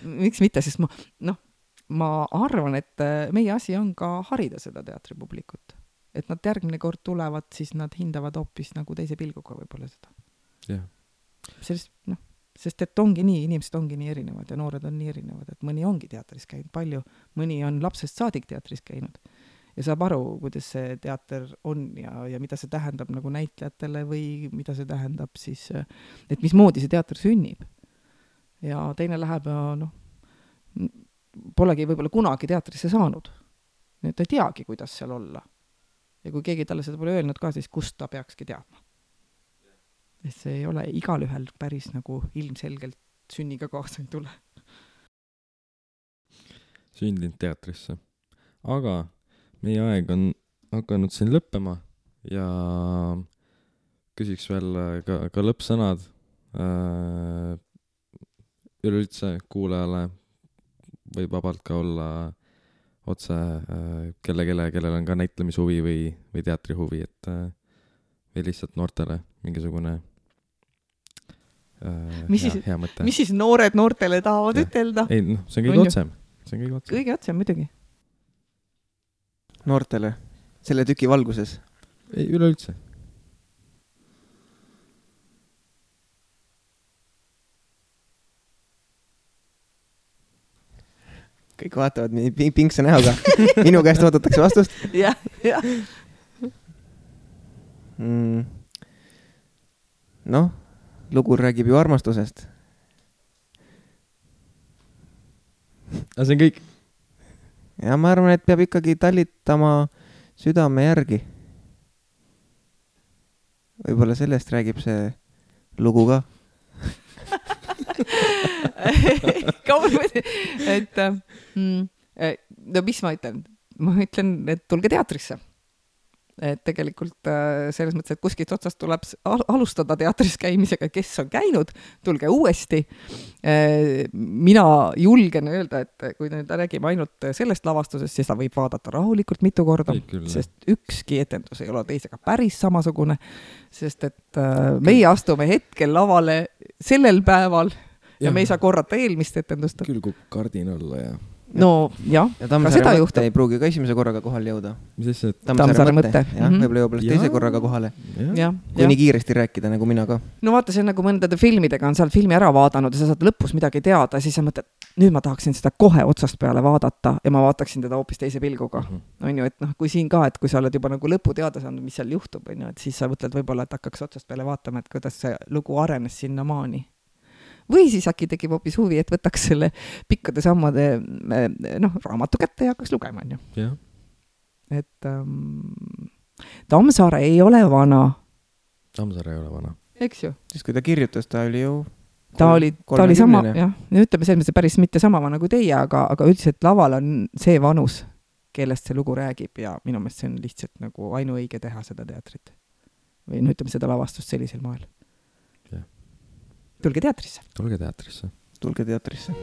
miks mitte, sest ma arvan, et meie asi on ka harida seda teatripublikut. Et nad järgmine kord tulevad, siis nad hindavad hoopis nagu teise pilguga võib-olla seda. Jah. Sest et ongi nii, inimesed ongi nii erinevad ja noored on nii erinevad, et mõni ongi teatris käinud palju, mõni on lapsest saadik teatris käinud. Ja saab aru, kuidas see teater on ja mida see tähendab nagu näitlejatele või mida see tähendab siis, et mismoodi see teater sünnib. Ja teine läheb ja polegi võib-olla kunagi teatrisse saanud. Nii et ta ei teagi, kuidas seal olla. Ja kui keegi talle seda pole öelnud ka, siis kust ta peakski teadma. Et see ei ole igal ühel päris nagu ilmselgelt sünniga kaasa ei tule. Sündinud teatrisse. Aga meie aeg on hakanud siin lõppema ja küsiks veel ka lõppsõnad üleüldse kuulajale võib vabalt ka olla otse kellel on ka näitlemishuvi või teatrihuvi, et või lihtsalt noortele mingisugune hea mõte. Mis siis noored noortele tahavad ütelda? Ei, see on kõige otsem. Kõige otsem, muidugi. Noortele, selle tüki valguses? Ei, üleüldse. Kõik vaatavad pinkse näoga. Minu käest oodatakse vastust. Jah. Lugu räägib ju armastusest. Aga see on kõik? Ja ma arvan, et peab ikkagi talitama südame järgi. Võib-olla sellest räägib see lugu ka. et mis ma ütlen? Ma ütlen, et tulge teatrisse. Et tegelikult selles mõttes, et kuskilt otsast tuleb alustada teatris käimisega, kes on käinud, tulge uuesti. Mina julgen öelda, et kui nüüd räägime ainult sellest lavastusest, siis ta võib vaadata rahulikult mitu korda, sest ükski etendus ei ole teisega päris samasugune, sest et meie astume hetkel lavale sellel päeval ja me ei saa korrata eelmist etendust. Küll kui kardin olla ja... No jah, ja Tammsaare mõtte ei pruugi ka esimese korraga kohale jõuda. Mis see? Tammsaare mõtte. Jah, võib-olla jõuab teise korraga kohale. Kui nii kiiresti rääkida, nagu mina ka. No vaata, see on nagu mõndade filmidega on seal filmi ära vaadanud ja sa saad lõpus midagi teada, siis sa mõtled, nüüd ma tahaksin seda kohe otsast peale vaadata ja ma vaataksin teda hoopis teise pilguga. On ju, et kui siin ka, et kui sa oled juba nagu lõpu teada saanud, mis seal juhtub, on ju, et siis sa mõtled võib-olla, et hakkaks otsast peale vaatama, et kuidas see lugu arenes sinna maani. Või siis äkki tekib hoopis huvi, et võtaks selle pikkade sammade raamatu kätte ja hakkaks lugema, on ju. Yeah. Et Tammsaare ei ole vana. Tammsaare ei ole vana. Eks ju? Siis kui ta kirjutas, ta oli ju... Ta oli sama, jah. Ütleme selles mõttes päris mitte sama vana kui teie, aga üldiselt laval on see vanus, kellest see lugu räägib ja minu meelest see on lihtsalt nagu ainuõige teha seda teatrit. Või ütleme seda lavastust sellisel moel. Yeah. Tulge teatrisse. Tulge teatrisse. Tulge teatrisse.